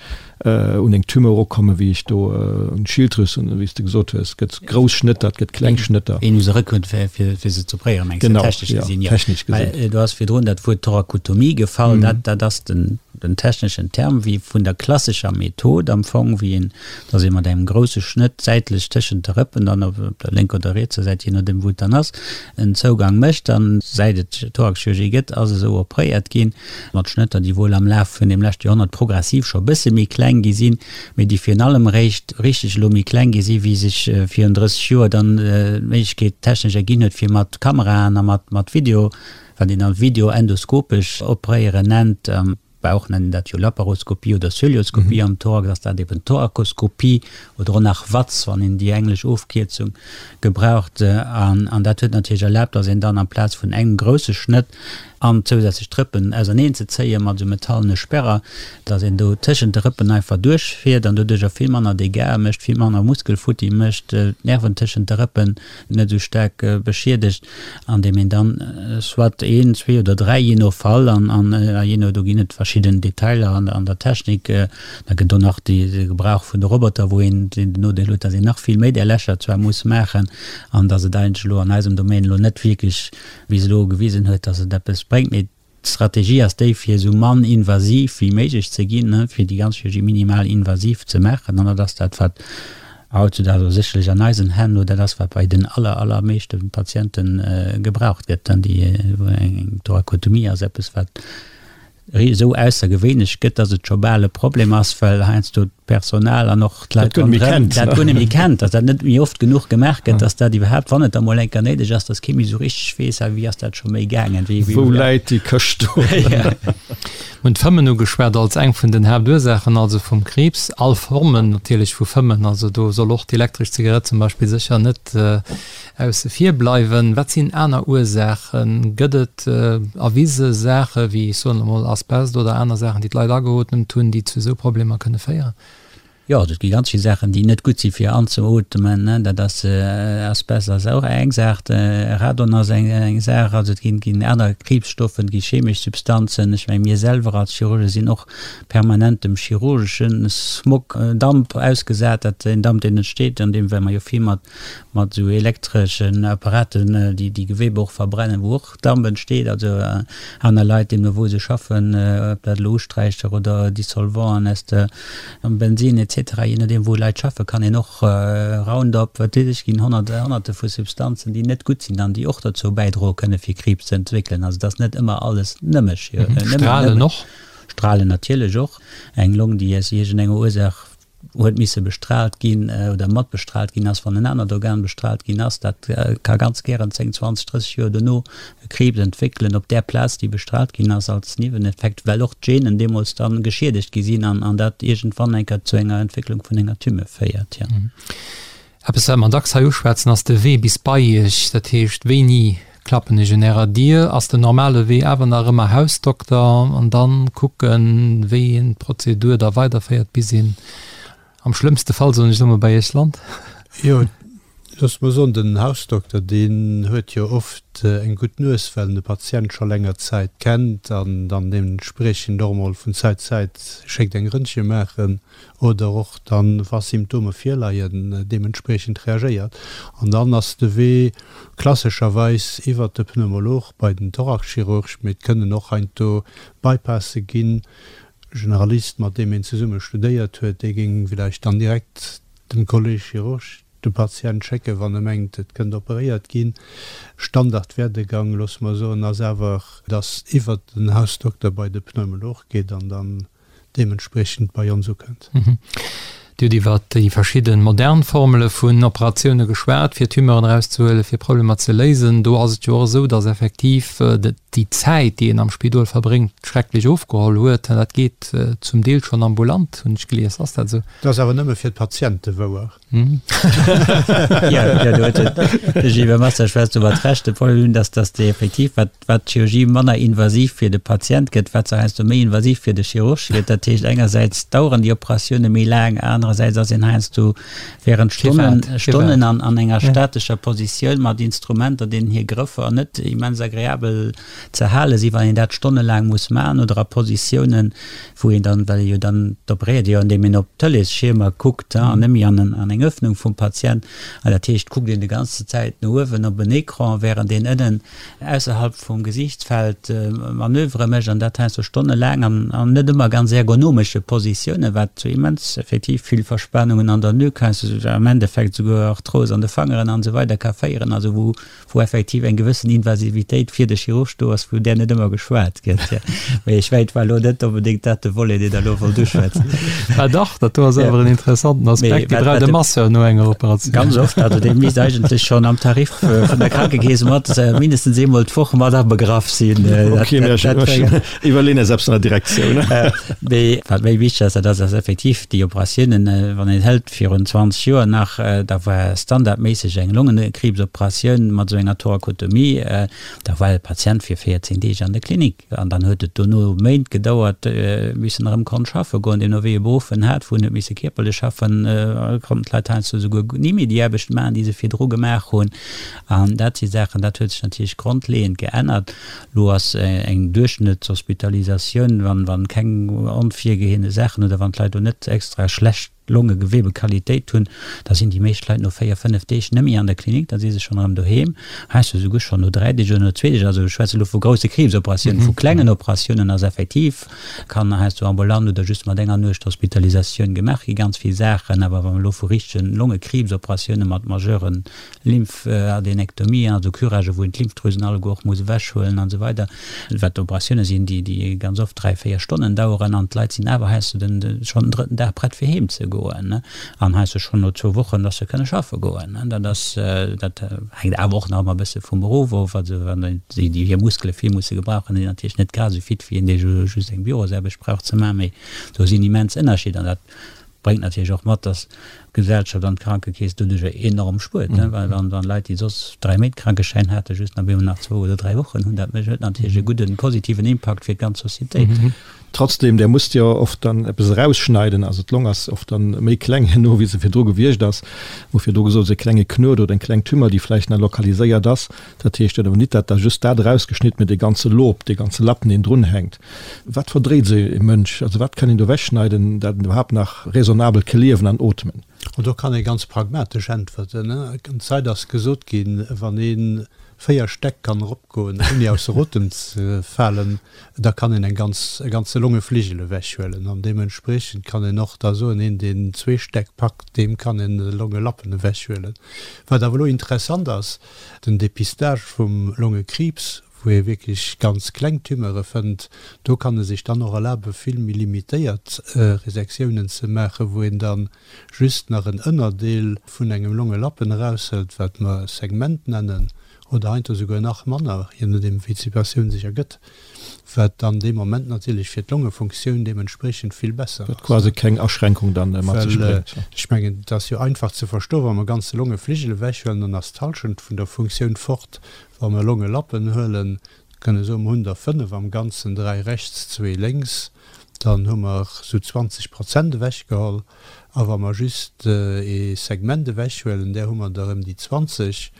un eng Tumeur erukommen, wéi ech do un d'Schilddrüs, wéi s de gesot hues, gëtt grouss Schnëtter, et gëtt kleng Schnëtter. Een u se erakënnt, fir se ze opréieren, mengs de, technesch gesinn? Genau, jo, technesch gesinn. Well do ass virdrun dat Wuert Thorakotomie gefall, dat ass den. Den techneschen Term wéi vun der klassescher Method am Fong, wéi een, dass ee mat engem grousse Schnëtt säitlech tëschent de Rëppen dann op der lénker oder rietser Säit, jee nodeem wou et dann ass, en Zougang mécht. An säit et Thoraxchirurgie gëtt, ass esou opréiert ginn, mat Schnëtter, déi wuel am Laf vun deem leschte Joerhonnert progressiv scho e bësse méi kleng gi sinn, mee déi virun allem eréischt richteg elo méi kleng gi si wéi sech virun 30 Joer dann d'Méiglechkeet technesch erginn huet, fir mat Kameraen a mat Video wat een dann videoendoskopesch opréieren nennt, am Bauch nennt een dat jo Laparoskopie oder Cœlioskopie, am Thorax ass dat eben Thorakoskopie oder och nach VATS, wann een déi englesch Ofkierzung gebraucht. An dat huet natierlech erlaabt, dass een dann amplaz vun engem grousse Schnëtt an zousätzlech d'Rëppen auserneen ze zéien mat esou metallene Sperrer, dass een do tëschent de Rëppen einfach duerchfiert an doduercher vill manner Dégâts mécht, vill manner Muskelfutti mécht, d'Nerven tëschent de Rëppen net esou staark beschiedegt, andeem een dann soit een, zwee oder dräi, jee no Fall an jee no, do ginn et verschidden Detailer an der Technik, da gëtt och nach de Gebrauch vun de Roboter, wou een den Nodeel huet, datt een nach vill méi där Lächer zwar muss maachen an datt et eigentlech elo an eisem Domaine elo net wierklech bis elo gewisen huet, datt et eppes bréngt. Mee D'Strategie ass déi, fir esou mann invasiv wéi méiglech ze ginn, fir déi ganz Chirurgie minimal invasiv ze maachen. An dat ass dat, wat hautzudaags, also sécherlech an eisen Hänn elo, dat ass, wat bei den aller, allermeeschte Patiente gebraucht gëtt. Déi eng Thorakotomie ass eppes, wat esou aussergewéinlech gëtt, dass et scho bal e Problem ass, well heiansdo. d'Personal an och d'Leit ronderëm dat guer net méi kennt, datt dat net méi oft genuch gemaach gëtt, datt dat iwwerhaapt, wann et da mol eng Kéier néideg ass, datt kee méi esou richteg weess, ah wéi ass dat scho méi gaangen, wéi, wéi. Wou läit déi Këscht do? Mir hunn d'Fëmmen ugeschwat als eng vun den Haaptursaachen also vum Kriibs, all Formen natierlech vu Fëmmen, also do soll och d'elektresch Zigarett zum Beispill sécher net Ausse vir bleiwen. Wat sinn aner Ursaachen? Gëtt et erwise Saache wéi, ech soen emol, Asbest oder aner Saachen, déi d'Leit ageootmt hunn, déi zu esou Problemer kënne féieren? Jo, et gi ganz vill Saachen, déi net gutt si fir anzeootmen. Dat ass, Asbest ass och eng Saach, Radon ass eng Saach, also et ginn aner Kriibsstoffen, et gi chemesch Substanzen. Ech menge mir selwer als Chirurge sinn och permanent dem chirurgesche Smog, Damp ausgesat, dat en Damp deen entsteet an deem, well mer jo vill mat mat esou elektreschen Apparaten, déi déi Gewebe och verbrennen, wou och Damp entsteet. Also aner Leit, deemno wou se schaffen, ob dat elo Usträicher oder Dissolvanten aus der Bensin et cetera, je nodeem wou Leit schaffen, kann een och Roundup, wat weess ech, ginn Honnerte vu Substanzen, déi net gutt sinn an déi och dozou bäidroe kënne fir Kriibs ze entwéckelen. Also et ass net ëmmer alles nëmme. Strahlen och? Strahlen natierlech och. Eng Long, déi aus iergendenger Ursaach huet misse bestrahlt ginn oder mat bestrahlt ginn ass, wann en anert Organ bestrahlt ginn ass, dat ka ganz gären 10, 20, 30 Joer dono e Kriibs entwéckelen op där Plaz, déi bestrahlt ginn ass, als Nieweneffekt, well och d'Genen deemools da geschiedegt gi sinn an dat iergendwann eng Kéier zu enger Entwécklung vun enger Tumeur féiert. Jo. Eppes wat mer dacks hei uschwätzen ass de Wee bis bei Iech, dat heescht wéini klappen ech un Ärer Dier? Ass den normale Wee awer nach ëmmer Hausdokter an dann kucken wéi een d'Prozedur da weiderféiert bis een am schlëmmste Fall, soen ech elo mol, bei Iech lant? Jo, loosse mer soen, den Hausdokter deen huet jo oft eng gutt Nues, well en de Patient scho länger Zäit kennt an dann deementspriechend och emol vun Zäit zu Zäit schéckt eng Röntgen maachen. oder och dann, wa Symptome virleien, deementspriechend reagéiert. An dann ass de Wee klassescherweis iwwert de Pneumolog bei den Thoraxchirurg, mee et kënnen och heiansdo Bypasse ginn. Generalist, mat deem een zesumme studéiert huet, dee géing villäicht dann direkt dem Kolleg Chirurg de Patient schécken, wann e mengt, et kënnt operéiert ginn. Standardwerdegang, loosse mer soen, ass awer, dass iwwert den Hausdokter bei de Pneumolog geet an dann deementspriechend bei ons ukënnt. Dir hutt iwwer déi verschidde modern Formele vun Operatioune geschwat, fir Tumeuren erauszehuelen, fir Problemer ze léisen. Do ass et jo och esou, datt effektiv déi Zäit, déi een am Spidol verbréngt, schrecklech ofgeholl huet. Dat geet zum Deel schonn ambulant, hunn ech gelies. Ass dat esou? Dat ass awer nëmme fir d'Patiente wouer. Jo, do huet de Gilbert Massa schwätzt do mat Recht. De Problem ass, datt déi effektiv, wat wat d'Chirurgie manner invasiv fir de Patient gëtt, wat se heiansdo méi invasiv fir de Chirurg gëtt. Dat heescht, engersäits daueren déi Operatioune méi laang, anerersäits ass een heiansdo während Stonnen, Stonnen an, an enger statescher Positioun mat Instrumenter, deenen hir Grëffer net immens agreabel ze hale sinn, wann een dat stonnelaang muss maachen, oder a Positiounen, wou een dann, well ee jo dann, d'operéiert ee jo, andeem een op d'Tëleesschiermer kuckt an net méi an an eng Öffnung vum Patient. An dat heescht, kuckt een déi ganze Zäit no uewen op en Ecran, während een ënnen ausserhalb vum Gesiichtsfeld Manövere mécht, an dat heiansdo stonnelaang an an net ëmmer ganz ergonomesche Positiounen, wat zu immens effektiv vill Verspanungen an der Nuque, heiansdo am Endeffekt souguer Arthros an de Fangeren an esou weider ka féieren, also wou wou effektiv eng gewëssen Invasivitéit fir de Chirurg do ass, vun där net ëmmer geschwat gëtt. Mee ech mengen, et war elo net onbedéngt dat de Volet, deen Der elo wollt uschwätzen. Mä dach, dat do ass awer en interessanten Aspekt, dee brauch de Masseur no enger Operatioun. Ganz oft, also dee misst eigentlech schonn am Tarif vun der Krankekeess mat mindestens eemol d'Woch mat abegraff sinn. Okay, mä ech iwwerleeën eis eppes an der Direktioun. Mee wat méi wichteg ass, dat ass, dass effektiv déi Operatiounen, wann een hëlt virun 20 Joer nach, da war standardméisseg eng Longenkriibsoperatioun mat esou enger Thorakotomie, da war de Patient fir 14 Deeg an der Klinik an dann huet et dono Méint gedauert, bis en erëm konnt schaffe goen. Deemno wéi e Beruff en hat, wou en huet misse kierperlech schaffen, konnten d'Leit heiansdo souguer ni méi déi Aarbecht maachen, déi se virdru gemaach hunn. An dat si Saachen, dat huet sech natierlech grondleeënd geännert. Lo ass eng Duerchschnëttshospitalisatioun, wann keng onvirgeheene Saachen oder wann d'Leit do net extra schlecht. Longegewebequalitéit hunn, da sinn déi meescht Leit no 4, 5 Deeg net méi an der Klinik, da si se schonn erëm doheem, heiansdo esouguer schonn no 3 Deeg oder no zwee Deeg. Also ech schwätze elo vu grousse Kriibsoperatiounen. Vu klengen Operatiounen ass effektiv, kann heiansdo ambulant oder just mat enger Nuecht Hospitalisatioun gemaach gi ganz vill Saachen. Awer wa mer elo vu richtegen Longekriibsoperatioune mat majeuren Lymphadenektomien, also Curagë wou een d'Lymphdrüsen alleguer och muss ewechhuelen an esou weider, wat Operatioune sinn, déi déi ganz oft 3, 4 Stonnen daueren an d'Leit sinn awer heiansdo den schonn den drëtten Dag prett fir heem ze goen an heiansdo schonn no zwou Wochen, dass se kënne schaffe goen. Dat ass, dat hänkt awer och nach ëmmer e bësse vum Beruff of, also wann déi déi hir Muskele vill musse gebrauchen, sinn natierlech net grad esou fit wéi een dee just eng Bürosaarbecht brauch ze maachen, mee do sinn immens Ënnerscheeder an dat Bréngt natierlech och mat, dass d'Gesellschaft an d'Krankekeess doduercher enorm spuert, well wann Leit, déi soss 3 Méint Krankeschäin haten, just nach op eemol nach zwou oder 3 Wochen hunn, dat huet natierlech e gudden, positiven Impakt fir d'ganz Societéit. Trotzdem, där musst jo oft dann eppes erausschneiden, also d'Long ass oft dann méi kleng herno, wéi se virdru gewiescht ass. Hu virdru gesot, e klenge Knuet oder eng kleng Tumeur, déi vläicht nach lokaliséiert ass. Dat heescht jo awer nit, dat da just dat erausgeschnidden, mee dee ganze Lob, dee ganze Lappen, deen drunhänkt. Wat verdréit esou e Mënsch? Also wat kann een do ewechschneiden, dat en iwwerhaapt nach raisonnabel ke liewen an ootmen? An do kann ee ganz pragmatesch äntwerten. Ganz Zäit ass gesot ginn, wann ee 4 Stäck kann eropgoen, ouni ausser Otem ze falen, da kann een eng ganz, e ganze Longefligel ewechhuelen. An deementspriechend kann een och da soen, een, deen zwee Stäck packt, deem kann een e Longelappen ewechhuelen. Wat awer elo interessant ass, Den Dépistage vum Longekriibs, wou ee wierklech ganz kleng Tumeure fënnt, do kann e sech dann och erlabe vill méi limitéiert Resektiounen ze maachen, wou een da just nach en Ënnerdeel vun engem Longelappen eraushëlt, wat mer Segment nennen, oder heiansdo souguer nach manner, je nodeem wéi d'Situatioun sech ergëtt. Wat dann dee Moment natierlech fir d'Longefunktioun deementspriechend vill besser ass. Wat quasi keng Aschränkung dann mat sech bréngt. Well ech mengen, et ass jo einfach ze verstoen, wa mer ganze Longefligel ewechhuelen, dann ass d'Halschent vun der Funktioun fort. Wa mer Longelappen huelen, kënne soen, mer hunn der 5 am Ganzen, 3 rechts, zwee lénks, dann hu mer esou 20 Prozent ewechgeholl. A wa mer just ee Segment ewechhuelen, där hu mer der ëm déi 20,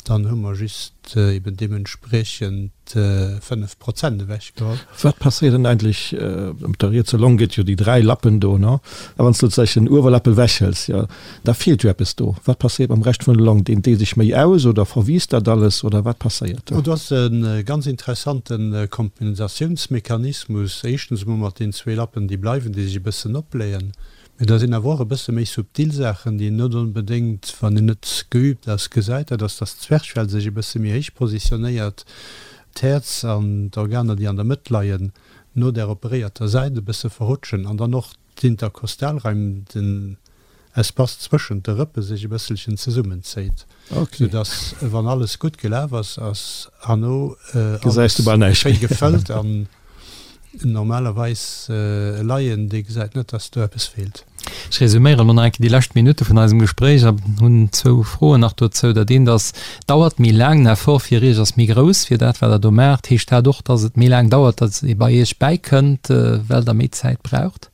dann hu mer just eben deementspriechend 5 Prozent ewechgeholl. Wat passéiert dann eigentlech op der rietser Long? Gëtt jo déi 3 Lappen do, ne? A wann s du sozusagen den Uewerlapp ewechhëls, jo, da feelt jo eppes do. Wat passéiert mam Rescht vun der Long? Deent dee sech méi aus oder verwiisst dat alles oder wat passéiert do? Do ass e ganz interessante Kompensatiounsmechanismus. Éischtens emol mat den zwee Lappen, déi bleiwen, déi sech e bëssen opbléien. Mee da sinn awer och e bësse méi subtil Saachen, déi een net onbedéngt, wann een net geübt ass, gesäit. Dat ass, dass d'Zwerchfell sech e bësse méi héich positionéiert, d'Häerz an d'Organer, déi an der Mëtt leien, no där operéierter Säit e bësse verrutschen an dann och d'Interkostalraim, den Espace zwëschent de Rëppe sech e bësselchen zesummenzéit, soudass, wann alles gutt gelaf ass, ass herno alles schéi gefëllt an normalerweis e Laien, dee gesäit net, dass do eppes feelt. Ech resuméieren elo nach eng Kéier déi lescht Minutte vun eisem Gespréich a hunn zwou Froen nach dozou. Dat eent ass, Dauert méi laang, den Effort fir Iech ass méi grouss fir dat, wat Der do maacht. Heescht dat och, dass et méi laang dauert, dass ee bei Iech bäikënnt, well Der méi Zäit braucht?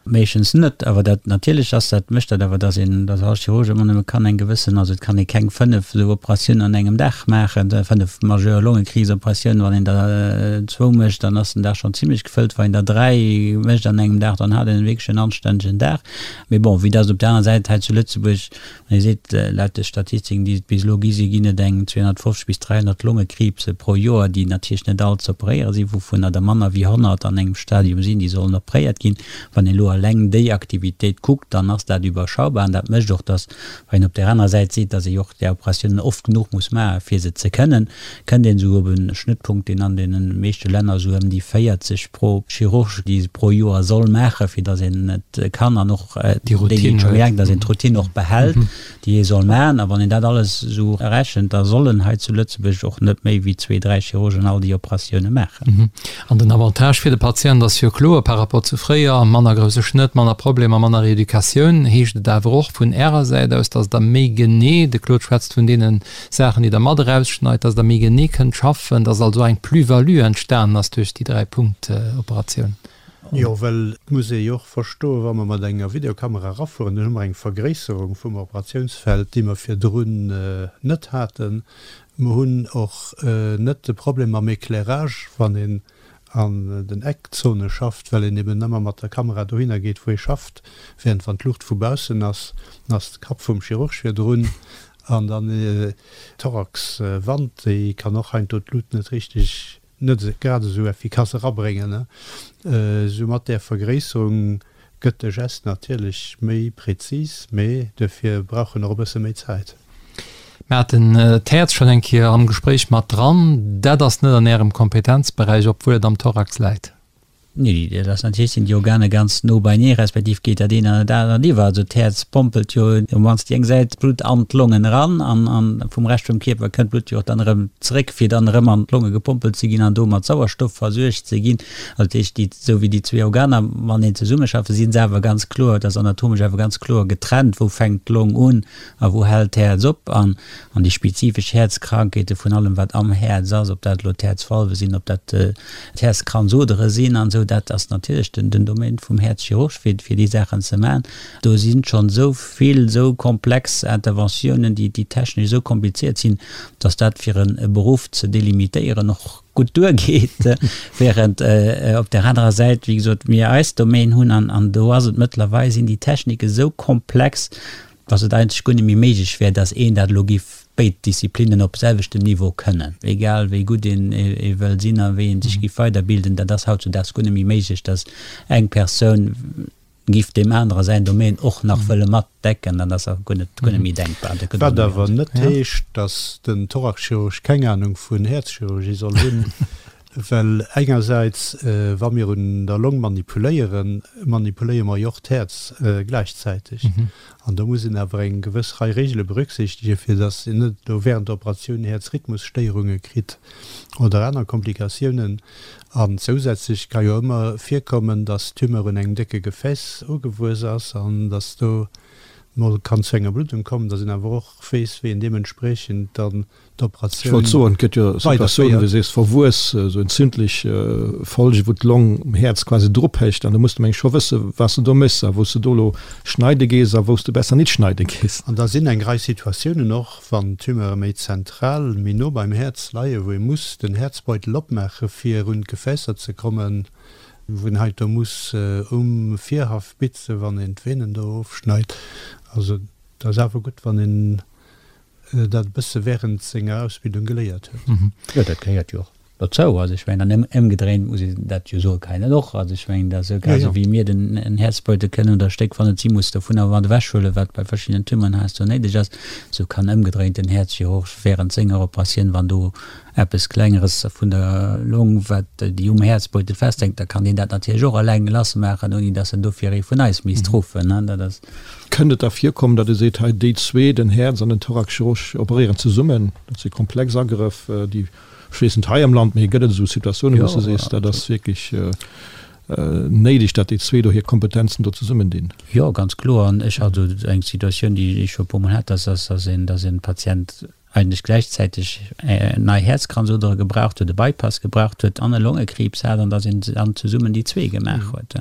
Meeschtens net, awer dat natierlech ass dat, mécht dat awer, dass een, dass all Chirurg ëmmer nëmme kann eng gewëssen, also et kann ee keng 5 esou Operatiounen an engem Dag maachen, 5 majeur Longekriibsoperatiounen, wann een der zwou mécht, dann ass den Dag schonn zimlech gefëllt, wann een der 3 mécht an engem Dag, dann hat een wierklech en anstännegen Dag. Mee bon, vue dass op där aner Säit hei zu Lëtzebuerg Wann ee seet, laut de Statistiken, déi et bis elo gi sinn, ginn et eng 250 bis 300 Longekriibse pro Joer, déi natierlech net all ze operéiere sinn, wouvunner der manner wéi 100 an engem Stadium sinn, déi sollen operéiert ginn. Wann een elo eleng déi Aktivitéit kuckt, dann ass dat iwwerschaubar an dat mécht och, dass, wann een op där anerer Säit seet, dass ee jo och där Operatiounen oft genuch muss maachen, fir se ze kënnen, kënnt een esou op e Schnëttpunkt, deen an deene meeschte Länner esou ëm déi 40 pro Chirurg, déi se pro Joer soll maachen, fir datt een et kann an och déi, déi et scho méi laang, datt een d'Routine och behält, déi ee soll maachen. A wann een dat alles esou rechent, da sollen hei zu Lëtzebuerg och net méi wéi zwee, dräi Chirurgen all déi Operatioune maachen. An den Avantage fir de Patient ass jo kloer par rapport zu fréier, manner grousse Schnëtt, manner Problemer, manner Reeducatioun. Heescht et awer och vun Ärer Säit aus, datt Der méi genee, de Claude schwätzt vun deene Saachen, déi Der mat erausschneit, datt Der méi genee kënnt schaffen, datt also eng Plus-value entstanen ass duerch déi Dräi-Punkt-Operatioun? Jo, well et muss ee jo och verstoen, wa mer mat enger Videokamera erafueren, dann hu mer eng Vergréisserung vum Operatiounsfeld, déi mer virdrun net haten. Mer hunn och net de Problem mam Éclairage, wann een. an den Eckzone schafft, well een eben ëmmer mat der Kamera dohinner geet, wou ee schafft, während wann d'Luucht vu baussen ass, dann ass de Kapp vum Chirurg virdrun an dann d'Thoraxwand, déi kann och heiansdo d'Lut net richteg, net grad esou effikass erabréngen. Esou mat där Vergréisserung gëtt de Gest natierlech méi präzis, mee duerfir brauch en och e bësse méi Zäit. Mir haten d'Häerz schonn eng Kéier am Gespréich mat dran. Dat ass net an Ärem Kompetenzberäich, obwuel et am Thorax läit. Nee, dat ass natierlech, sinn déi Organer ganz no beinee, respektiv geet dat eent an dat anert iwwer. Also d'Häerz pompelt jo op mannst déi eng Säit d'Blutt an d'Longen eran an an vum Rescht vum Kierper kënnt d'Blutt jo och dann erëm zeréck, fir dann erëm an d'Longe gepompelt ze ginn an do mat Sauerstoff versuergt ze ginn. Also dat heescht, déi, esou wéi déi zwee Organer mateneen zesummeschaffen, si se awer ganz kloer, dat ass anatomesch awer ganz kloer getrennt, wou fänkt d'Long un A wou hält d'Häerz op? An an déi spezifesch Häerzkrankheete vun allem wat am Häerz ass, ob dat elo d'Häerzvalve sinn, ob dat d'Häerzkranzodere sinn an esou, dat ass natierlech den den Domaine vum Häerzchirurg fir fir déi Saachen ze maachen. Do sinn schonn esou vill esou komplex Interventiounen, déi déi technesch esou kompliziert sinn, datt dat fir en e Beruff ze delimitéieren och gutt duergeet, während op där anerer Säit, wéi gesot, mir eis Domaine hunn an an do ass et mëttlerweil sinn déi Technike esou komplex, dass et eigentlech guer net méi méiglech wär, dass een dat elo giff béid Disziplinnen op selwechtem Niveau kënnen, egal wéi gutt een ee wëll sinn a wéi ee sech giff weiderbilden, dat ass hautzudaags guer net méi méiglech, dass eng Persoun giff deem anere säin Domaine och nach wëlle mat decken, dat ass guer net, guer net méi denkbar. Dat gëtt och Wat net méi awer net heescht, dass den Thoraxchirurg keng Anung vun Häerzchirurgie soll hunn. Well engersäits, wa mir un der Long manipuléieren, manipuléiere mer jo och d'Häerz gläichzäiteg. An do muss een awer eng gewëss Rei Regele berücksichtegen, fir datt een net elo während der Operatioun Häerzrhythmusstéierunge kritt oder aner Komplikatiounen. An zousätzlech ka jo ëmmer virkommen, datt d'Tumeur un engem décke Gefääss ugewuess ass an datt do mol kann zu enger Bluddung kommen, datt een awer och weess, wéi een deementspriechend dann Ech wollt soen, et gëtt jo Situatiounen, wéi du sees, verwuess, esou entzündlech Folgen, wou d'Long um Häerz quasi drophécht an do muss de meng ech scho wësse wat s de do méchs a wou s de do elo schneide gees a wou s de besser nit schneide gees. An da sinn eng Rei Situatiounen och, wann d'Tumeure méi zentral, méi no beim Häerz leien, wou ee muss den Häerzbeutel opmaache fir un d'Gefäässer ze kommen, wou een heiansdo muss um Virhaff bitzen, wann een d'Venen do ofschneit. Also et ass awer gutt, wann een dat e bësse während senger Ausbildung geléiert huet. Jo, dat gehéiert jo och dozou. Also ech mengen, an ëmgedréint muss een dat jo soe kennen och. Also ech mengen, dat esou grad esou wéi mir den en Häerzbeutel kënnen oder e Stéck, wann et si muss, dovunner mat ewechhuelen, wat bei verschiddenen Tumeuren heiansdo néideg ass, esou kann ëmgedréint den Häerzchirurg während senger Operatioun, wann do eppes Klengeres vun der Long, wat déi um Häerzbeutel festhänkt, da kann deen dat natierlech och eleng lassmaachen, ouni datt en dofir ee vun eis misst ruffen. Dat ass. Kënnt et da virkommen, datt ee seet, hei déi zwee, den Häerz an den Thoraxchirurg, operéieren zesummen? Dat si komplex Agrëff, déi, ech weess net hei am Land, mee gëtt et esou Situatiounen, wou s de sees, dat ass wierklech néideg, datt déi zwee do hir Kompetenzen do zesummendinn? Jo, ganz kloer. An ech hat esou eng Situatioun, déi ech scho e puermol hat, dass dass een, dass e Patient eigentlech gläichzäiteg nei Häerzkranzodere gebraucht huet, e Bypass gebraucht huet an e Longekriibs hat, an dass een dann zesummen déi zwee gemaach huet.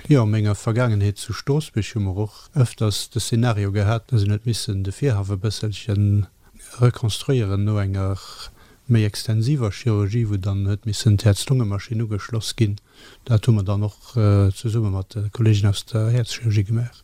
Jo, a menger Vergaangenheet zu Stroossbuerg hu mer och ëfters de Szenario gehat, dass een huet missen de Virhaff e bësselche rekonstruéieren no enger méi extensiver Chirurgie, wou dann huet missen d'Häerz-Lunge-Maschinn ugeschloss ginn. Dat hu mer dann och zesumme mat de Kollegen aus der Häerzchirurgie gemaach.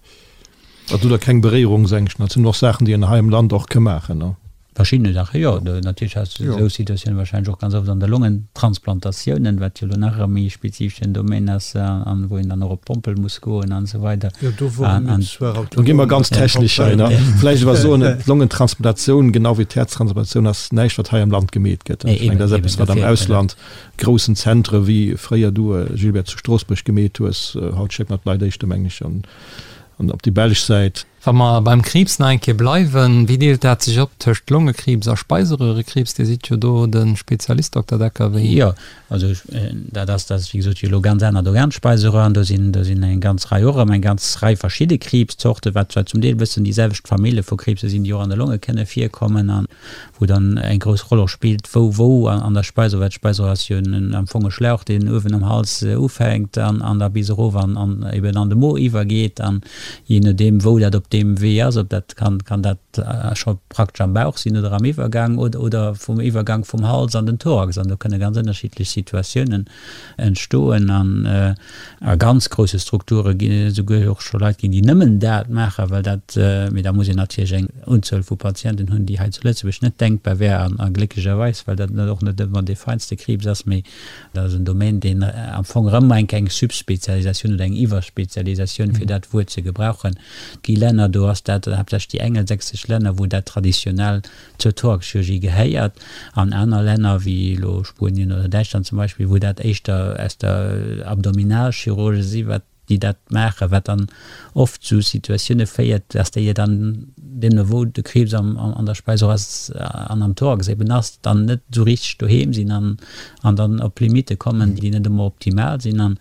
Also do keng Beréierungsängschten, dat sinn och Saachen, déi een hei am Land och ka maachen, ne? Verschiddene Saachen, jo. Natierlech has de esou Situatiounen wahrscheinlech och ganz oft an de Longentransplantatiounen, wat jo elo nach e méi spezifeschen Domaine ass an wou een dann och op d'Pompel muss goen an esou weider. Jo, do wore mir zwar autonom. Do gi mer ganz technesch hei, ne? Vläicht awer soen, d'Longentransplantatioun, genau wéi d'Häerztransplantatioun, ass näischt, wat hei am Land gemeet gëtt. Ech mengen, dat ass eppes, wat am Ausland groussen Zentre wéi fréier du, Gilbert, zu Stroossbuerg gemeet hues. Haut schéckt mer d'Leit éischter, mengen ech, an op déi belsch Säit. Wa mer beim Kriibs nach eng Kéier bleiwen, wéi deelt dat sech op tëscht Longekriibs a Speiseröhrekriibs? Dir sidd jo do de Spezialist, Dokter Decker, wéi? Jo, also dat ass, dat ass wéi gesot jo elo ganz anert Organ, d'Speiseröhr, an do sinn, do sinn eng ganz Rei och erëm eng ganz Rei verschidde Kriibszorten, wat zwar zum Deel e bëssen déi selwecht Famille vu Kriibse sinn, déi och an de Longe kënne virkommen. An wou dann eng grouss Roll och spillt, wou wou an der Speiseröhr, well d'Speiseröhr ass jo en am Fong e Schlauch, deen uewen am Hals ufänkt an an da bis erof an an eben an de Mo iwwergeet an jee nodeem wou dat op. deem Wee ass, ob dat kann, kann dat scho praktesch am Bauch sinn oder am Iwwergang oder, oder vum Iwwergang vum Hals an den Thorax. An do kënne ganz ënnerschiddlech Situatiounen entstoen. An a ganz grousse Strukture ginn et esouguer och scho Leit ginn, déi nëmmen dat maachen, well dat, mee da muss een natierlech eng Unzuel vu Patienten hunn, déi hei zu Lëtzebuerg net denkbar wär an a glécklecherweis, well dat net och net ëmmer dee feinste Kriibs ass, mee dat ass en Domaine, deen am Fong erëm eng eng Subspezialisatioun oder eng Iwwerspezialisatioun, fir dat Wuert ze gebrauchen, gi Länner, do ass dat haaptsächlech déi engelsächsesch Länner, wou dat traditionell zur Thoraxchirurgie gehéiert, an aner Länner, wéi elo Spuenien oder Däitschland zum Beispill, wou dat éischter aus der Abdominalchirurgie si wat déi dat maachen, wat dann oft zu Situatioune féiert, dass déi dann, deemno wou de Kriibs am an der Speiseröhr ass an am Thorax eben ass, dann net esou richteg doheem sinn an an dann op Limitte kommen, déi net ëmmer optimal sinn. An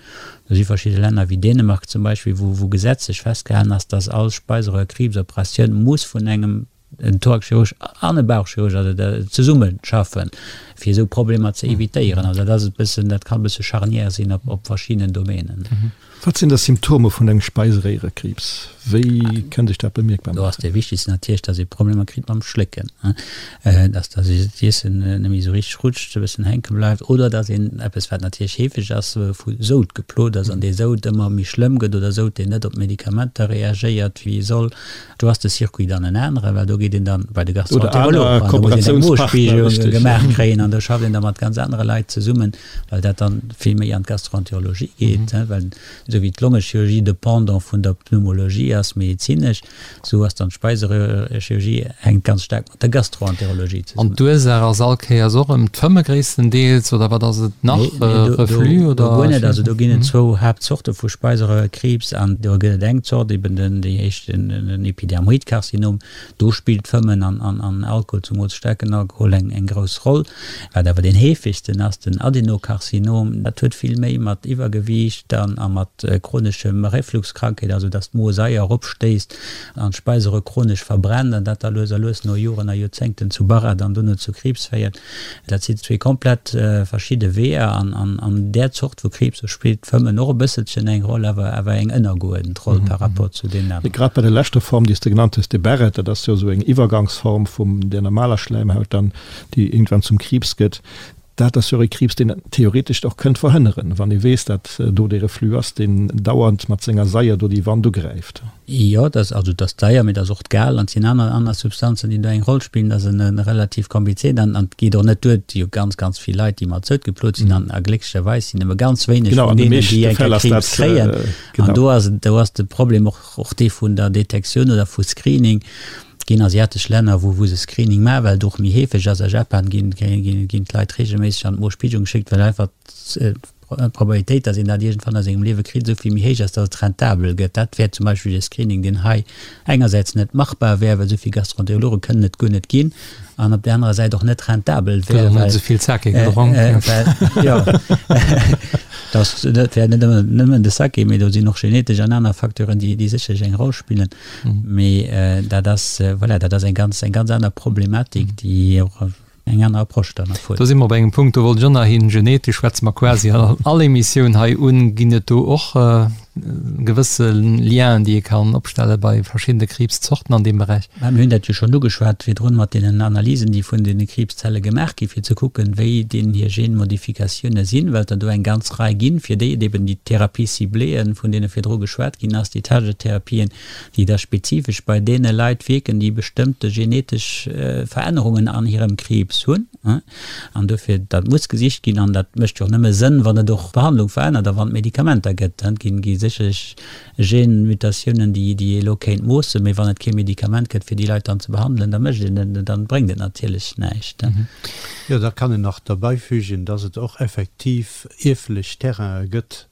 do si verschidde Länner wéi Dänemark zum Beispill, wou wou gesetzlech festgehalen ass, dass all Speiseröhrkriibsoperatioun muss vun engem en Thoraxchirurg an e Bauchchirurg, also da zesumme schaffen, fir esou Problemer ze evitéieren. Also dat ass e bëssen, dat kann e bësse charnière sinn op, op verschiddenen Domänen. Wat sinn da Symptome vun engem Speiseréierekriibs? Wéi kënnt sech dat bemierkbar Do ass maachen? dee wichtegsten natierlech, dass ee Problemer kritt mam Schlécken, dass dass d'Iessen net méi esou richteg rutscht, e bëssen hänke bleift oder dass een, eppes wat natierlech heefeg ass, vu Soud geplot ass an dee Soud ëmmer méi schlëmm gëtt oder Soud deen net op d'Medikamenter reagéiert wéi e soll. Do ass de Circuit dann en aneren, well do geet een dann bei de Gastroenterolog an do muss een eng Mospiegelung gemaach kréien an do schafft een da mat ganz anere Leit zesummen, well dat dann vill méi an d'Gastroenterologie geet, well esou wéi d'Longechirurgie de Pendant vun der Pneumologie ass medezinesch, esou ass dann d'Speiseröhrchirurgie hänkt ganz staark mat der Gastroenterologie zesummen. An d'Ursaach ass all Kéiers och erëm d'Fëmme gréisstendeels, oder wat ass et nach? Nee, nee, do, Reflux oder? Do guer net. Also do ginn et zwou Haaptzorte vu Speiseröhrkriibs an do gëtt et eng Zort, eben den, déi éischt, den, den Epidermoidkarzinom. Do spillt Fëmmen an, an, an Alkohol, zumools staarken Alkohol, eng, eng grouss Roll. Wat awer deen heefegsten ass, den Adenokarzinom, dat huet vill méi mat Iwwergewiicht an, a mat chroneschem Refluxkrankheet, also dass d'Mosaier eropstéisst, an d'Speiseröhr chronesch verbrennt an dat da lues a lues no Joren a Joerzéngten zu Barrett an dono zu Kriibs féiert. Dat sinn zwee komplett verschidde Weeër an an där Zort vu Kriibs, do spillt d'Fëmmen och e bësselchen eng Roll, awer awer eng ënnergeuerdent Roll par rapport zu deenen aneren. Grad bei der leschter Form, déi s de genannt hues, de Barrett, dat ass jo esou eng Iwwergangsform vum der normaler Schläimhaut dann, déi iergendwann zum Kriibs gëtt. Dat ass jo och e Kriibs, deen een theoretesch och kënnt verhënneren, wann ee weess, datt do dee Reflux ass, deen dauernd mat senger Saier do déi Wand ugräift. Jo, dat ass also dat ass d'Saier, mee dat ass och d'Gal an et sinn aner aner Substanzen, déi do eng Roll spillen. Dat ass e relativ komplizéiert an an et geet och net duer. Et si jo ganz, ganz vill Leit, déi mat Soud geplot sinn an a glécklecherweis sinn nëmme ganz wéineg vun deenen, déi eng Kéier Kriibs kréien. An do ass do ass de Problem och och dee vun der Detektioun oder vu Screening. Et ginn asiatesch Länner, wou wou se Screening maachen, well et och méi heefeg ass. A Japan ginn ginn d'Leit reegelméisseg an d'Mospiegelung geschéckt, well einfach d'Probabilitéit, datt een dat iergendwann a sengem Liewe kritt, esou vill méi héich ass, datt et rentabel gëtt. Dat wär zum Beispill e Screening, deen hei engersäits net machbar wär, well esou vill Gastroenterologe kënnen et guer net ginn, an op där anerer Säit och net rentabel wär, well. Esou vill Sake gedronk. Jo, dat wär net nëmmen de Sake, mee do sinn och genetesch an aner Facteuren, déi sécherlech eng Roll spillen. Mee dat ass, voilà, dat ass eng ganz, eng ganz aner Problematik, déi och eng aner Approche dann erfuerdert. Do si mer op engem Punkt, do wollt ech och nach hin. Genetesch schwätze mer quasi an all Emissioun hei un. Ginn et do och gewësse Lienen, déi ee kann opstelle bei verschiddene Kriibszorten an deem Beräich? Mä mir hunn dat jo schonn ugeschwat virdrun mat deenen Analysen, déi vun deene Kriibszelle gemaach ginn, fir ze kucken, wéi deenen hir Genmodifikatioune sinn, well et der do eng ganz Rei ginn, fir déi et eben déi Thérapie cibléeën, vun deene virdru geschwat ginn ass, déi Target-Therapien, déi da spezifesch bei deene Leit wierken, déi bestëmmte genetesch Verännerungen an hirem Kriibs hunn. An dofir, dat muss gesicht ginn an dat mécht jo och nëmme Sënn, wann et och d'Behandlung verännert a wann et Medikamenter gëtt. Et gi sécherlech Genmutatiounen, déi ee elo kéint moossen, mee wann et kee Medikament gëtt, fir déi Leit dann ze behandelen, da mécht een et, dann bréngt et natierlech näischt. Jo, da kann een nach derbäifügen, dass et och effektiv ierflech Terrainen gëtt,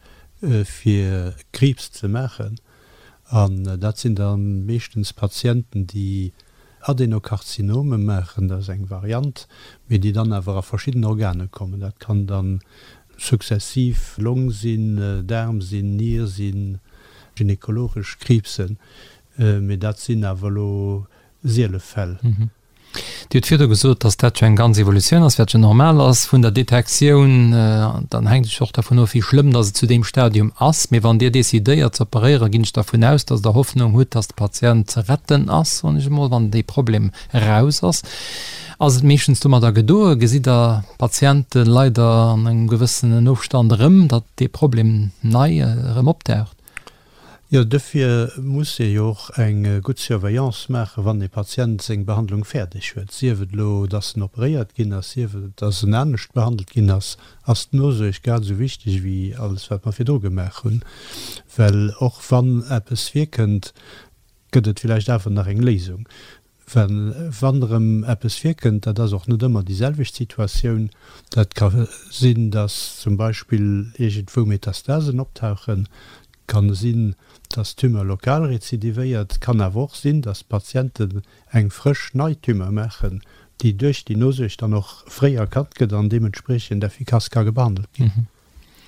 fir Kriibs ze maachen. An dat sinn da meeschtens Patienten, déi Adenokarzinome maachen, dat ass eng Variant, mee déi dann awer a verschidden Organe kommen. Dat kann dann successiv Long sinn, Daarm sinn, Nier sinn, gynekologesch Kriibsen, mee dat sinn awer elo siele Fäll. Dir hutt virdu gesot, dass dat jo eng ganz Evolutioun ass, wat jo normal ass vun der Detektioun. Dann hänkt et jo och dervun of, wéi schlëmm dass et zu deem Stadium ass. Mee wann Dir decidéiert ze operéieren, ginn ech dervun aus, dass Der Hoffnung hutt, dass de Patient ze retten ass, soen ech emol, wann dee Problem eraus ass. Ass et meeschtens domadder gedoe? Gesitt Der Patiente leider an engem gewëssenen Ofstand erëm, datt dee Problem nei erëm opdaucht? Jo, dofir muss ee jo och eng gutt Surveillance maachen, wann e Patient seng Behandlung fäerdeg huet. Sief et elo, dass en operéiert ginn ass, sief et, dass en anescht behandelt ginn ass, ass d'Nosuerg grad esou wichteg wéi alles, wat mer virdru gemaach hunn. Well och wann eppes virkënnt, gëtt et villäicht awer nach eng Léisung. Well wann erëm eppes virkënnt, dat ass och net ëmmer déi selwecht Situatioun, dat ka sinn, datt zum Beispill iergendwou Metastasen optauchen, kann sinn, datt d'Tumeur lokal rezidivéiert, kann awer och sinn, datt d'Patienten eng frësch nei Tumeur maachen, déi duerch déi Nosuerg dann och fréi erkannt gëtt an deementspriechend effikass ka behandelt ginn.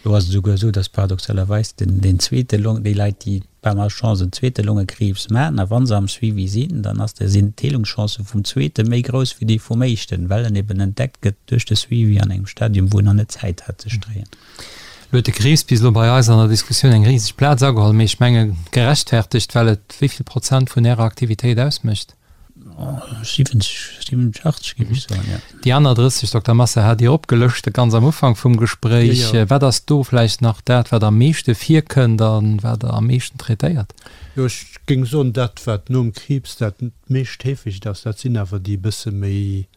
Do ass et esouguer esou, dass paradoxalerweis den, deen zweete Long, déi Leit, déi par Malchance en zweete Longekriibs maachen, a wa se am Suivi sinn, dann ass de, sinn d'Heelungschancë vum zweete méi grouss wéi déi vum éischten, well en eben entdeckt gëtt duerch de Suivi an engem Stadium, wou en nach net Zäit hat ze stréien. Lo huet de Kriibs bis elo bei eis an der Diskussioun eng riseg Plaz ageholl, mee ech menge gerechtfertegt, well et wéi vill Prozent vun Ärer Aktivitéit ausmécht? 70, 87 géif ech soen, jo. Déi aner 30, Dokter Massa, hat Dir opgelëscht ganz am Ufank vum Gespréich. Jo, jo. Wat ass do vläicht nach dat, wat am meeschte virkënnt a wat Der am meeschten traitéiert? Jo, ech géing soen, dat, wat nom Kriibs dat meescht heefegt ass, dat sinn awer déi e bësse méi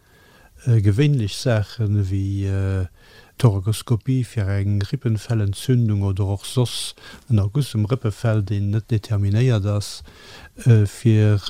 Gewéinlech Saachen ewéi Thorakoskopie fir eng Rippenfellentzündung oder och soss en Erguss um Rëppefell, deen net determinéiert ass, fir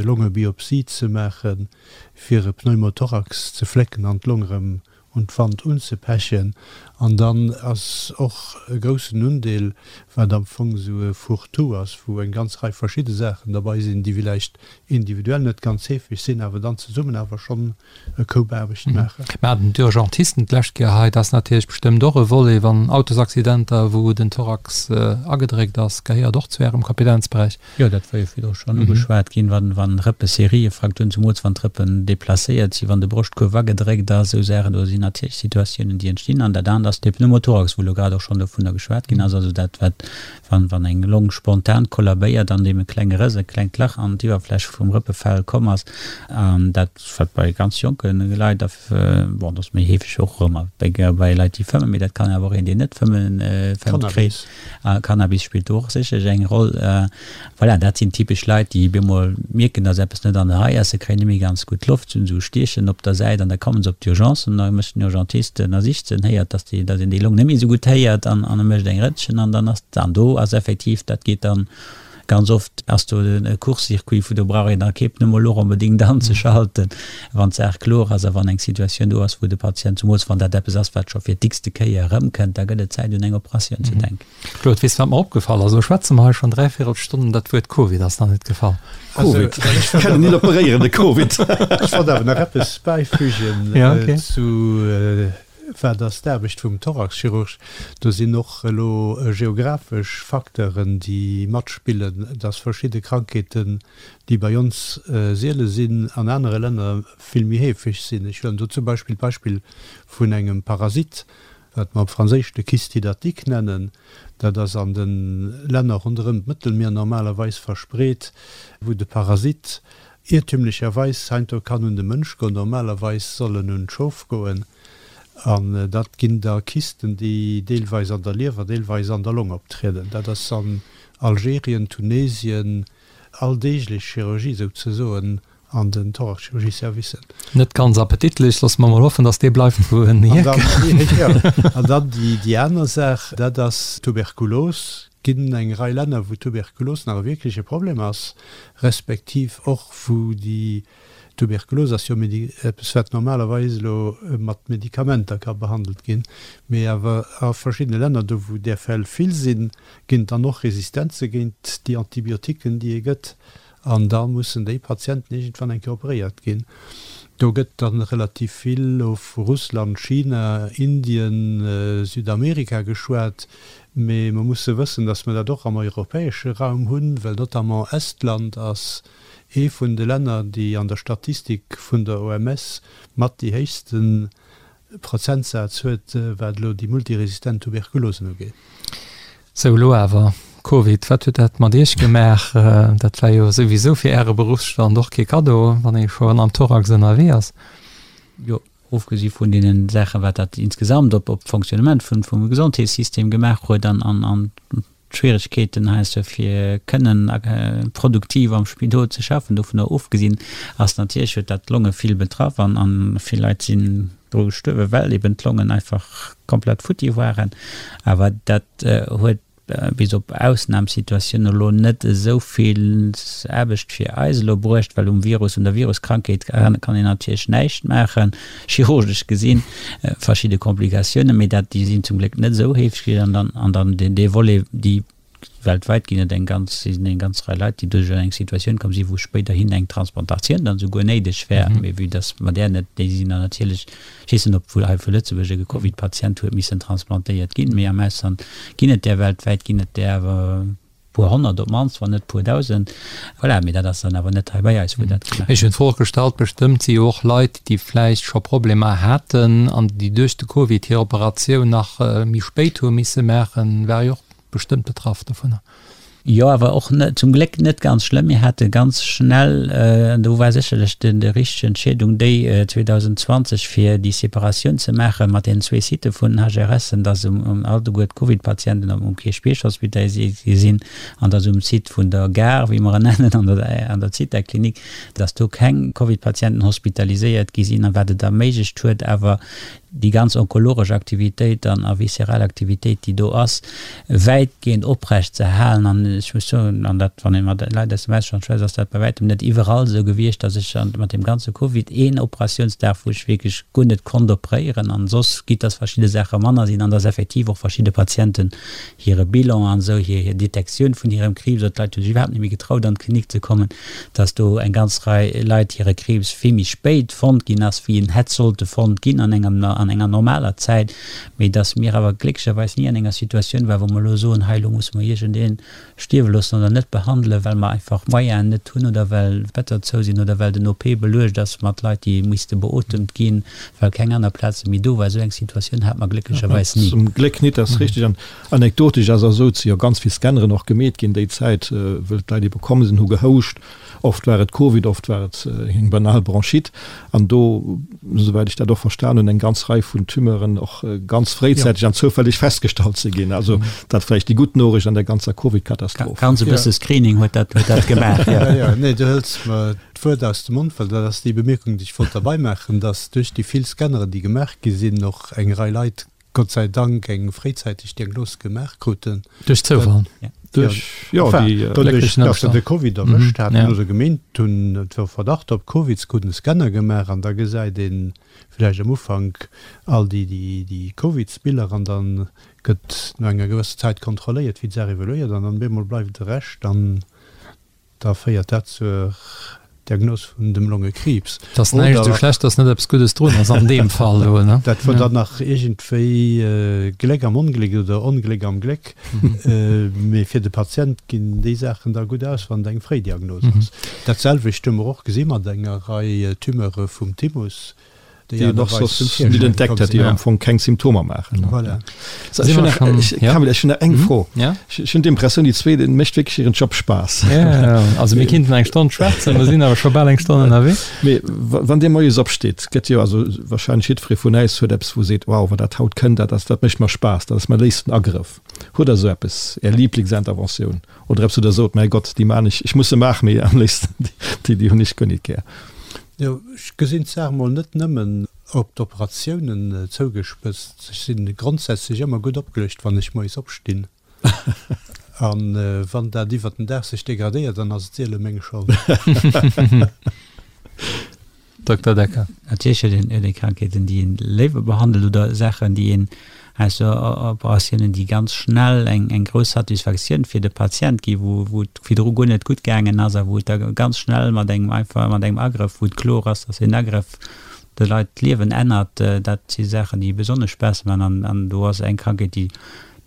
Longebiopsie ze maachen, fir e Pneumothorax ze flécken an d'Long erëm un d'Wand unzepechen. An dann ass och e groussen Undeel, wat am Fong esou e Fourre-tout ass, wou eng ganz Rei verschidde Saachen derbei sinn, déi villäicht individuell net ganz heefeg sinn, awer dann zesummen awer schonn e Koup Aarbecht maachen. Mir haten d'Urgentisten d'lescht Kéier hei. Dat ass natierlech bestëmmt och e Volet, wann Autosaccidenter, wou den Thorax agedréckt ass, gehéiert och zu Ärem Kompetenzberäich. Jo, dat war jo virdru schonn ugeschwat ginn, wann, wann Rëppeseriefrakturen, zumools wann d'Rëppen deplacéiert sinn, wann de Broschtkuerf agedréckt ass, esou Saachen, do sinn natierlech Situatiounen, déi entstinn. An dat anert ass de Pneumothorax, wou elo grad och schonn dovunner geschwat ginn ass, also dat, wat, wann, wann eng Long spontan kollabéiert an deem e klenge Rëss, e klengt Lach an d'Iwwerfläch vum Rëppefell komm ass, an dat, wat bei ganz jonke Leit a, bon, dat ass méi heefeg och erëm bei, bei Leit, déi fëmmen, mee dat kann awer och een, deen net fëmmen, fëmmt, kréien. Cannabis spillt do och sécherlech eng Roll. Voilà, dat sinn typesch Leit, déi bemol mierken, dass eppes net an der Rei ass. Se kréien net méi ganz gutt Loft, se hunn esou Stiechen op der Säit an da kommen se op d'Urgence an da mécht den Urgentist, ënnersicht se en héiert, dass déi, dass een déi Long net méi esou gutt héiert an an e mécht eng Rëntgen an dann ass, an do ass effektiv, dat geet dann ganz oft ass do e Court-circuit, vu do brauch een da kee Pneumolog onbedéngt anzeschalten, wann d'Saach kloer ass a wann eng Situatioun do ass, wou de Patient, zumools wann dat eppes ass, wat scho fir d'x-te Kéier erëmkënnt, da gëtt et Zäit un eng Operatioun ze denken. Claude, weess de wat mer opgefall ass? Elo schwätze mer hei schonn dräivéierel Stonn an dat Wuert Covid ass nach net gefall. Covid, ech kann en net operéieren, de Covid. Ech wollt awer nach eppes bäifügen zu Wat ass d'Aarbecht vum Thoraxchirurg? Do sinn och elo geographesch Facteuren, déi matspillen, dass verschidde Krankheeten, déi bei ons siele sinn, an anere Länner vill méi heefeg sinn. Ech huelen do zum Beispill d'Beispill vun engem Parasit, wat mer op Franséisch de Kyste hydatique nennen. Dat ass an de Länner ronderëm d'Mëttelmier normalerweis verspreet, wou de Parasit Iertümlecherweis heiansdo kann un de Mënsch goen, normalerweis soll en un d'Schof goen, an dat ginn da Kysten, déi deelweis an der Liewer, deelweis an der Long optrieden. Dat ass an Algerien, Tunesien alldeeglech Chirurgie souzesoen an den Thoraxchirurgie-Servicen. Net ganz appetitlech, loosse mer mol hoffen, datt dee bleift wou en hierkënnt. An dann déi aner Saach, dat ass d'Tuberkulos. Ginn eng Rei Länner, wou Tuberkulos nach e wierkleche Problem ass, respektiv och wou déi Tuberkulos ass jo eppes wat normalerweis elo mat Medikamenter ka behandelt ginn, mee awer a verschiddene Länner, do wou där Fäll vill sinn, ginn et dann och Resistenze géint déi Antibiotiquen, déi ee gëtt, an da mussen déi Patienten iergendwann eng Kéier operéiert ginn. Do gëtt dann relativ vill elo vu Russland, China, Indien, Südamerika geschwat. Mee mer musse wëssen, dass mer dat och am europäesche Raum hunn, well notamment Estland ass ee vun de Länner, déi an der Statistik vun der OMS mat déi héchste Prozentsaz huet, wat elo déi multiresistent Tuberkulosen ugeet. Sou, elo awer Covid, wat huet dat mat Iech gemaach? Dat war jo souwisou fir Äre Beruffsstand och kee Kaddo, wann ee schonn am Thorax ënnerwee ass. Jo, ofgesi vun deene Saachen, wat dat insgesamt op op d'Fonctionnement vun vum Gesondheetssystem gemaach huet an an an d'Schwieregkeeten heiansdo fir kënnen produktiv am Spidol ze schaffen, dovunner ofgesinn ass natierlech huet dat d'Longe vill betraff an an vill Leit sinn dru gestuerwen, well eben d'Longen einfach komplett futti waren. Awer dat huet bis op Ausnamsituatiounen elo net esou vill Aarbecht fir eis elo bruecht, well um Virus, un der Viruskrankheet kann een natierlech näischt maachen, chirurgesch gesinn, verschidde Komplikatiounen, mee dat, déi sinn zum Gléck net esou heefeg gewiescht. An dann, an dann deen, dee Volet, déi weltwäit ginn et eng ganz, sinn eng ganz Rei Leit, déi duerch eng Situatioun komm sinn, wou spéiderhin eng Transplantatioun dann esouguer néideg wär, mee vue dass mer där net, déi sinn dann natierlech Ech weess net, ob wuel hei vu Lëtzebuerg e Covid-Patient huet missen transplantéiert ginn, mee am Ausland ginn et där, weltwäit ginn et där awer e puer honnert op d'mannst, wann net puer dausend. Voilà, mee dat ass dann awer net hei bei eis, wou dat gemaach Ech hunn d'Fro och gestallt, bestëmmt si jo och Leit, déi vläicht scho Problemer haten an déi duerch de Covid hir Operatioun nach méi spéit hu misse maachen, ware jo och bestëmmt betraff dovunner. Jo, awer och net, zum Gléck net ganz schlëmm. Mir hate ganz schnell, an do war sécherlech den, déi richteg Entscheedung déi 2020, fir déi Separatioun ze maache mat deenen zwee Sitë vun den HRSen, dass um, um alleguer d'Covid-Patienten um, um Kierchbierg hospitaliséiert gi sinn an dass um Site vun der Gare, wéi mer en nennen, an der, an der Zithaklinik, dass do keng Covid-Patienten hospitaliséiert gi sinn, a wat et erméiglecht huet awer déi ganz onkologesch Aktivitéit an a visceral Aktivitéit, déi do ass, wäitgehend oprecht ze halen. An ech muss soen, an dat, wann ee mat Leit aus dem Ausland schwätzt, ass dat bei wäitem net iwwerall esou gewiescht, dass ech mat deem ganze Covid een Operatiounsdag, wou ech wierklech guer net konnt opréieren, an soss, quitte dass verschidde Saache manner sinn an dass effektiv och verschidde Patienten hire Bilan an esou, hir hir Detektioun vun hirem Kriibs, oder d'Leit hu sech iwwerhaapt net méi getraut an d'Klinik ze kommen, dass do eng ganz Rei Leit hire Kriibs vill méi spéit fonnt ginn ass, wéi en hätt sollte fonnt ginn an engem an enger normaler Zäit, mee dass mir awer glécklecherweis ni an enger Situatioun waren, wou mer elo soen, hei elo musse mer iergendee stierwe loossen oder net behandelen, well mer einfach d'Moyenen net hunn oder well d'Better zou sinn oder well den OP beluecht ass mat Leit, déi misste beotemt ginn, well keng aner Plaze méi do war. Esou eng Situatioun hate mer glécklecherweis ni. Zum Gléck nit, dat ass richteg. An anekdotesch ass esou, et si jo ganz vill Scanneren och gemeet ginn déi Zäit, wëll d'Leit ebe komm sinn, hu gehouscht. Oft war et Covid, oft war et eng banal Bronchite. An do, esouwäit ech dat och verstan hunn, eng ganz Rei vun Tumeuren och ganz fréizäiteg an zoufälleg festgestallt ze ginn. Also dat vläicht déi gutt Noriicht an der ganzer Covid-Katastroph. Ganz e bësse Screening huet dat, huet dat gemaach, jo. Jo, nee, du hëls mer d'Wuert aus dem Mond, well dat ass déi Bemierkung, déi ech wollt derbei maachen, dass duerch déi vill Scanneren, déi gemaach gi sinn, och eng Rei Leit Gott sei Dank eng fréizäiteg Diagnos gemaach kruten. Duerch Zoufall? Duerch, jo, déi glécklechen Ëmstänn. Dass se de Covid erwëscht haten oder gemeent hunn, et wor Verdacht op Covid, se kruten e Scanner gemaach an da gesäit ee vläicht am Ufank all déi, déi Covidsbiller an da gëtt no enger gewësser Zäit kontrolléiert, wéi d'Saach evoluéiert an dann bemol bleift de Rescht an Da féiert dat zur Diagnos vun dem Longekriibs. Et ass näischt esou schlecht, dass net eppes Guddes drun ass an deem Fall do, ne? Dat wor dann nach iergendwéi Gléck am Ongléck oder Ongléck am Gléck. Mee fir de Patient ginn déi Saachen da gutt aus, wann et eng fréi Diagnos ass. Dat selwecht hu mer och gesi mat enger Rei Tumeure vum Thymus. déi een och soss net entdeckt hätt, déi am Fong keng Symptomer maachen. Voilà. Kamil, ech hunn nach eng Fro. Ech hunn d'Impressioun, déi zwee, deene mécht wierklech hiren Job Spaass. Also mir kinnten eng Stonn schwätzen, mer sinn awer scho bal eng Stonn ënnerwee. Mee wann Dir moies opsteet, gëtt jo, also warscheinlech jiddweree vun äis huet eppes, wou e seet, wow, wann dat haut kënnt, dat ass, dat mécht mer Spaass, dat ass mäi léifsten Agrëff. Hutt Der esou eppes, Är Liblingsinterventioun oder eppes, wou Der sot, mäi Gott, déi maan ech, ech muss se maachen, mee am léifsten déi, déi hunn ech guer nit gär. Jo, ech gesinn d'Saach mol net nëmmen op d'Operatiounen zougespëtzt. Ech si grondsätzlech ëmmer gutt opgeluecht, wann ech moies opstinn. A wann dat iwwert den Dag sech degradéiert, dann ass et siele meng Schold. Dokter Decker. Natierlech huet een Krankheeten, déi een léiwer behandelt oder Saachen, déi een Ausser Operatiounen, déi ganz schnell eng eng grouss Satisfaktioun fir de Patient gi wou wou et virdru guer net gutt gaangen ass a wou et da ganz schnell mat engem einfach mat engem Agrëff, wou et kloer ass, dass deen Agrëff de Leit d'Liewen ännert. Dat si Saachen, déi besonnesch Spaass maachen an an do ass eng Krankheet, déi.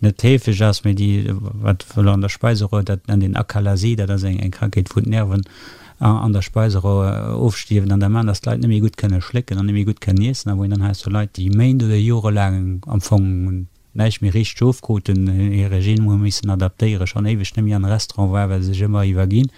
net heefeg ass, mee déi wat elo an der Speiseröhr, dat nennt een Akalasie, dat ass eng eng Krankheet wou d'Nerven an der Speiseröhr ofstierwen an da maachen, datt d'Leit net méi gutt kënne schlécken an net méi gutt kënnen iessen a wou een dann heiansdo Leit déi Méint oder jorelaang am Fong näischt méi richteg ofkruten, hir Regime hu missen adaptéieren, schonn éiweg net méi an de Restaurant war, well se sech ëmmer iwwerginn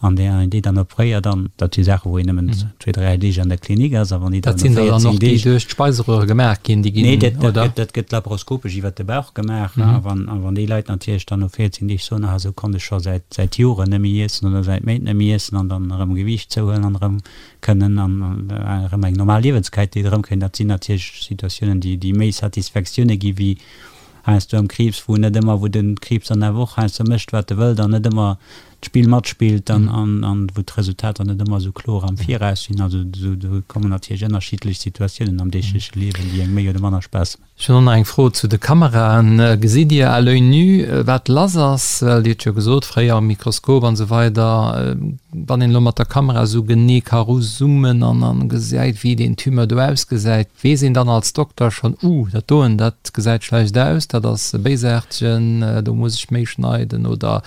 an déi een déi dann opréiert an dat si Saachen, wou een nëmmen zwee, dräi Deeg an der Klinik ass a wann déi dann no 14 Deeg. Dat sinn der dann och, déi duerch d'Speiseröhre gemaach ginn, déi ginn, oder? Nee, dat gëtt, dat gëtt laparoskopesch iwwert de Bauch gemaach a wann, a wann déi Leit natierlech dann no 14 Deeg soen, ah esou konnt ech scho säit, säit Joren net méi iessen oder säit Méint net méi iessen an dann erëm Gewiicht zouhuelen an erëm kënnen an erëm eng normal Liewensqualitéit erëmkréien, dat sinn natierlech Situatiounen, déi déi méi Satisfaktioune gi wéi heiansdo am Kriibs, wou net ëmmer, wou de Kriibs dann awer och heiansdo mécht, wat e wëllt an net ëmmer d'Spill matspillt an an wou d'Resultater net ëmmer esou kloer am Viraus sinn. Also do kommen natierlech ënnerschiddlech Situatiounen am deegleche Liewen, déi engem méi oder manner Spaass maachen. Ech hunn och nach eng Fro zu de Kameraen. Gesitt Dir à l'oeil nu, wat lass ass? Well Dir hutt jo gesot, fréier am Mikroskop an esou weider. Wann een elo mat der Kamera esou genee ka eruzoomen an an gesäit, wéi deen Tumeur do ausgesäit, weess een dann als Dokter schonn, Uh, dat doen, dat gesäit schlecht aus, dat ass e béisaartegen, do muss ech méi schneiden oder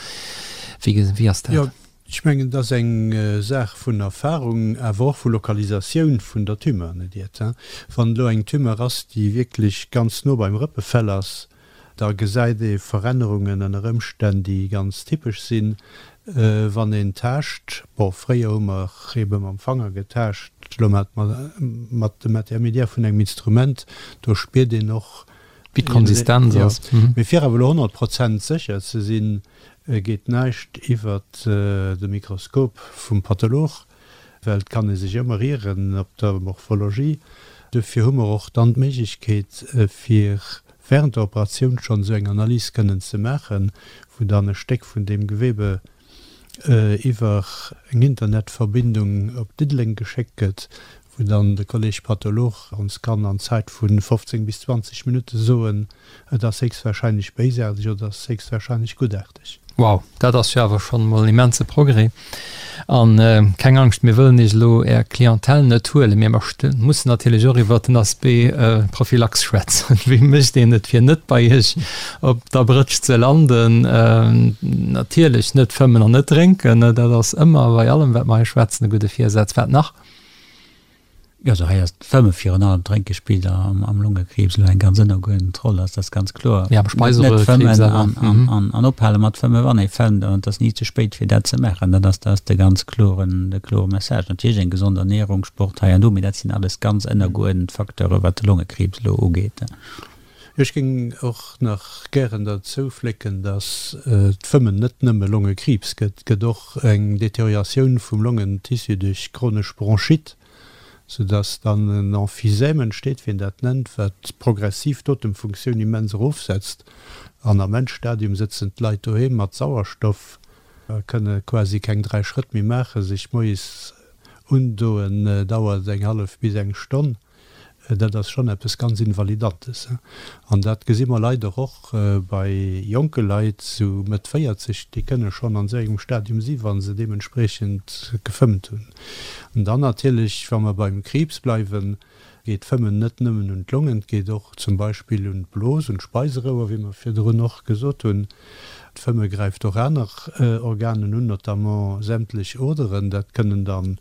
wéi, wéi ass dat? Ech mengen, et ass eng Saach vun Erfahrung, awer och vu Lokalisatioun vun der Tumeur, net iert. Wann elo eng Tumeur ass, déi wierklech ganz no beim Rëppefell ass, da gesäit ee Verännerungen ënner Ëmstänn, déi ganz typesch sinn, wann een taascht. Bon, fréier hu mer ebe mam Fanger getaascht, elo maache mer mat dem Intermédiaire vun engem Instrument, do spiert een och, Wéi d'Konsistenz ass. Mee fir awer elo 100 Prozent sécher ze sinn, geet näischt iwwert de Mikroskop vum Patholog, well et kann ee sech ëmmer ieren op der Morphologie. Dofir hu mer och dann d'Méiglechkeet, fir während der Operatioun schonn esou eng Analys kënnen ze maachen, wou dann e Stéck vun deem Gewebe iwwer eng Internetverbindung op Diddeleng geschéckt gëtt, wou dann de Kolleg Patholog ons kann an Zäit vu 15 bis 20 Minutte soen, et ass héchstwahrscheinlech béisaarteg oder et ass héchstwahrscheinlech guttaarteg. Wow, dat ass jo awer schonn emol en immense Progrès. An keng Angscht, mir wëllen Iech elo Är Clientèle net huelen, mee mer mussen natierlech och iwwert den Aspect Prophylaxe schwätzen. Wéi mécht een et, fir net bei Iech op der Brëtsch ze landen? Natierlech net fëmmen an net drénken, dat ass ëmmer bei allem, wat mer hei schwätzen, e gudde Virsaz. Wat nach? Jo, also hei ass d'Fëmme virun allem, d'Drénke spillt am am Longekriibs elo eng ganz ënnergeuerdent Roll, ass dat ganz kloer. Ja, am Speiseröhrekriibs awer. Net fëmmen an an ophale mat fëmme wann ee fëmmt, an et ass ni ze spéit fir dat ze maachen. Dat ass dat ass de ganz kloren de klore Message. Natierlech eng gesond Ernährung, Sport hei an do, mee dat sinn alles ganz ënnergeuerdent Facteure wat de Longekriibs elo ugeet. Ech géing och nach gären derzou flécken, dass d'Fëmmen net nëmme Longekriibs gëtt, et gëtt och eng Deterioratioun vum Longentissu duerch chronesch Bronchite, soudass dann en Emphysème entsteet, wéi een dat nennt, wat progressiv d'Otemfunktioun immens erofsetzt. An am Endstadium sëtzen d'Leit doheem mat Sauerstoff a kënne quasi keng 3 Schrëtt méi maachen. Sech moies undoen dauert eng hallef bis eng Stonn. Dat ass schonn eppes ganz Invalidantes. An dat gesi mer leider och bei jonke Leit, sou Mëtt 40, déi kënne schonn an esou engem Stadium si wa se deementspriechend gefëmmt hunn. An dann natierlech, wa mer beim Kriibs bleiwen, geet d'Fëmmen net nëmmen un d'Longen, et geet och zum Beispill un d'Blos, un d'Speiserouer, wéi mer virdrun och gesot hunn. D'Fëmme gräift och aner Organen un, notamment sämtlech Oderen. Dat kënnen dann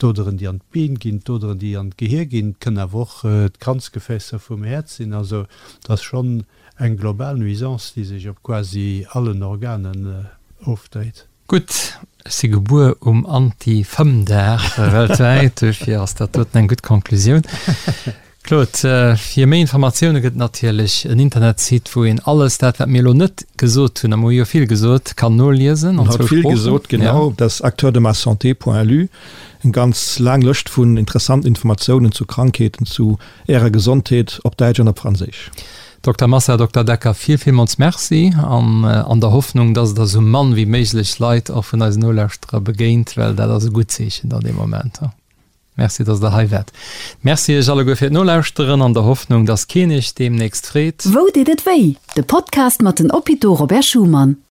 D'Oderen, déi an d'Been ginn, d'Oderen, déi an d'Gehier ginn, et kënnen awer och d'Kranzgefäässer vum Häerz sinn. Also et ass schonn eng global Nuisance, déi sech op quasi allen Organen ofdréit. Gutt, ech si gebuer um Anti-Fëmm-Dag weltwäit, duerfir ass dat doten eng gutt Konklusioun. Claude, fir méi Informatioune gëtt et natierlech en Internetsite, wou een alles dat, wat mir elo net gesot hunn, a mer hu jo vill gesot, kann noliesen an zwou Sproochen. Vill gesot, genau. Dat ass acteurdemassanté.lu, eng ganz laang Lëscht vun interessanten Informatiounen zu Krankheeten, zu Ärer Gesondheet op Däitsch an op Franséisch. Dokter Massa, Dokter Decker, vill, villmools Merci an an der Hoffnung, dass et der esou mann wéi méiglech Leit och vun eisen Nolauschterer begéint, well dat ass e gutt Zeechen dann dee Moment. Merci, dass der hei waart. Merci iech alleguer fir d'Nolauschteren, an der Hoffnung, dass keen iech deemnächst freet. Wou deet et wéi? De Podcast mat den Hôpitaux Robert Schuman.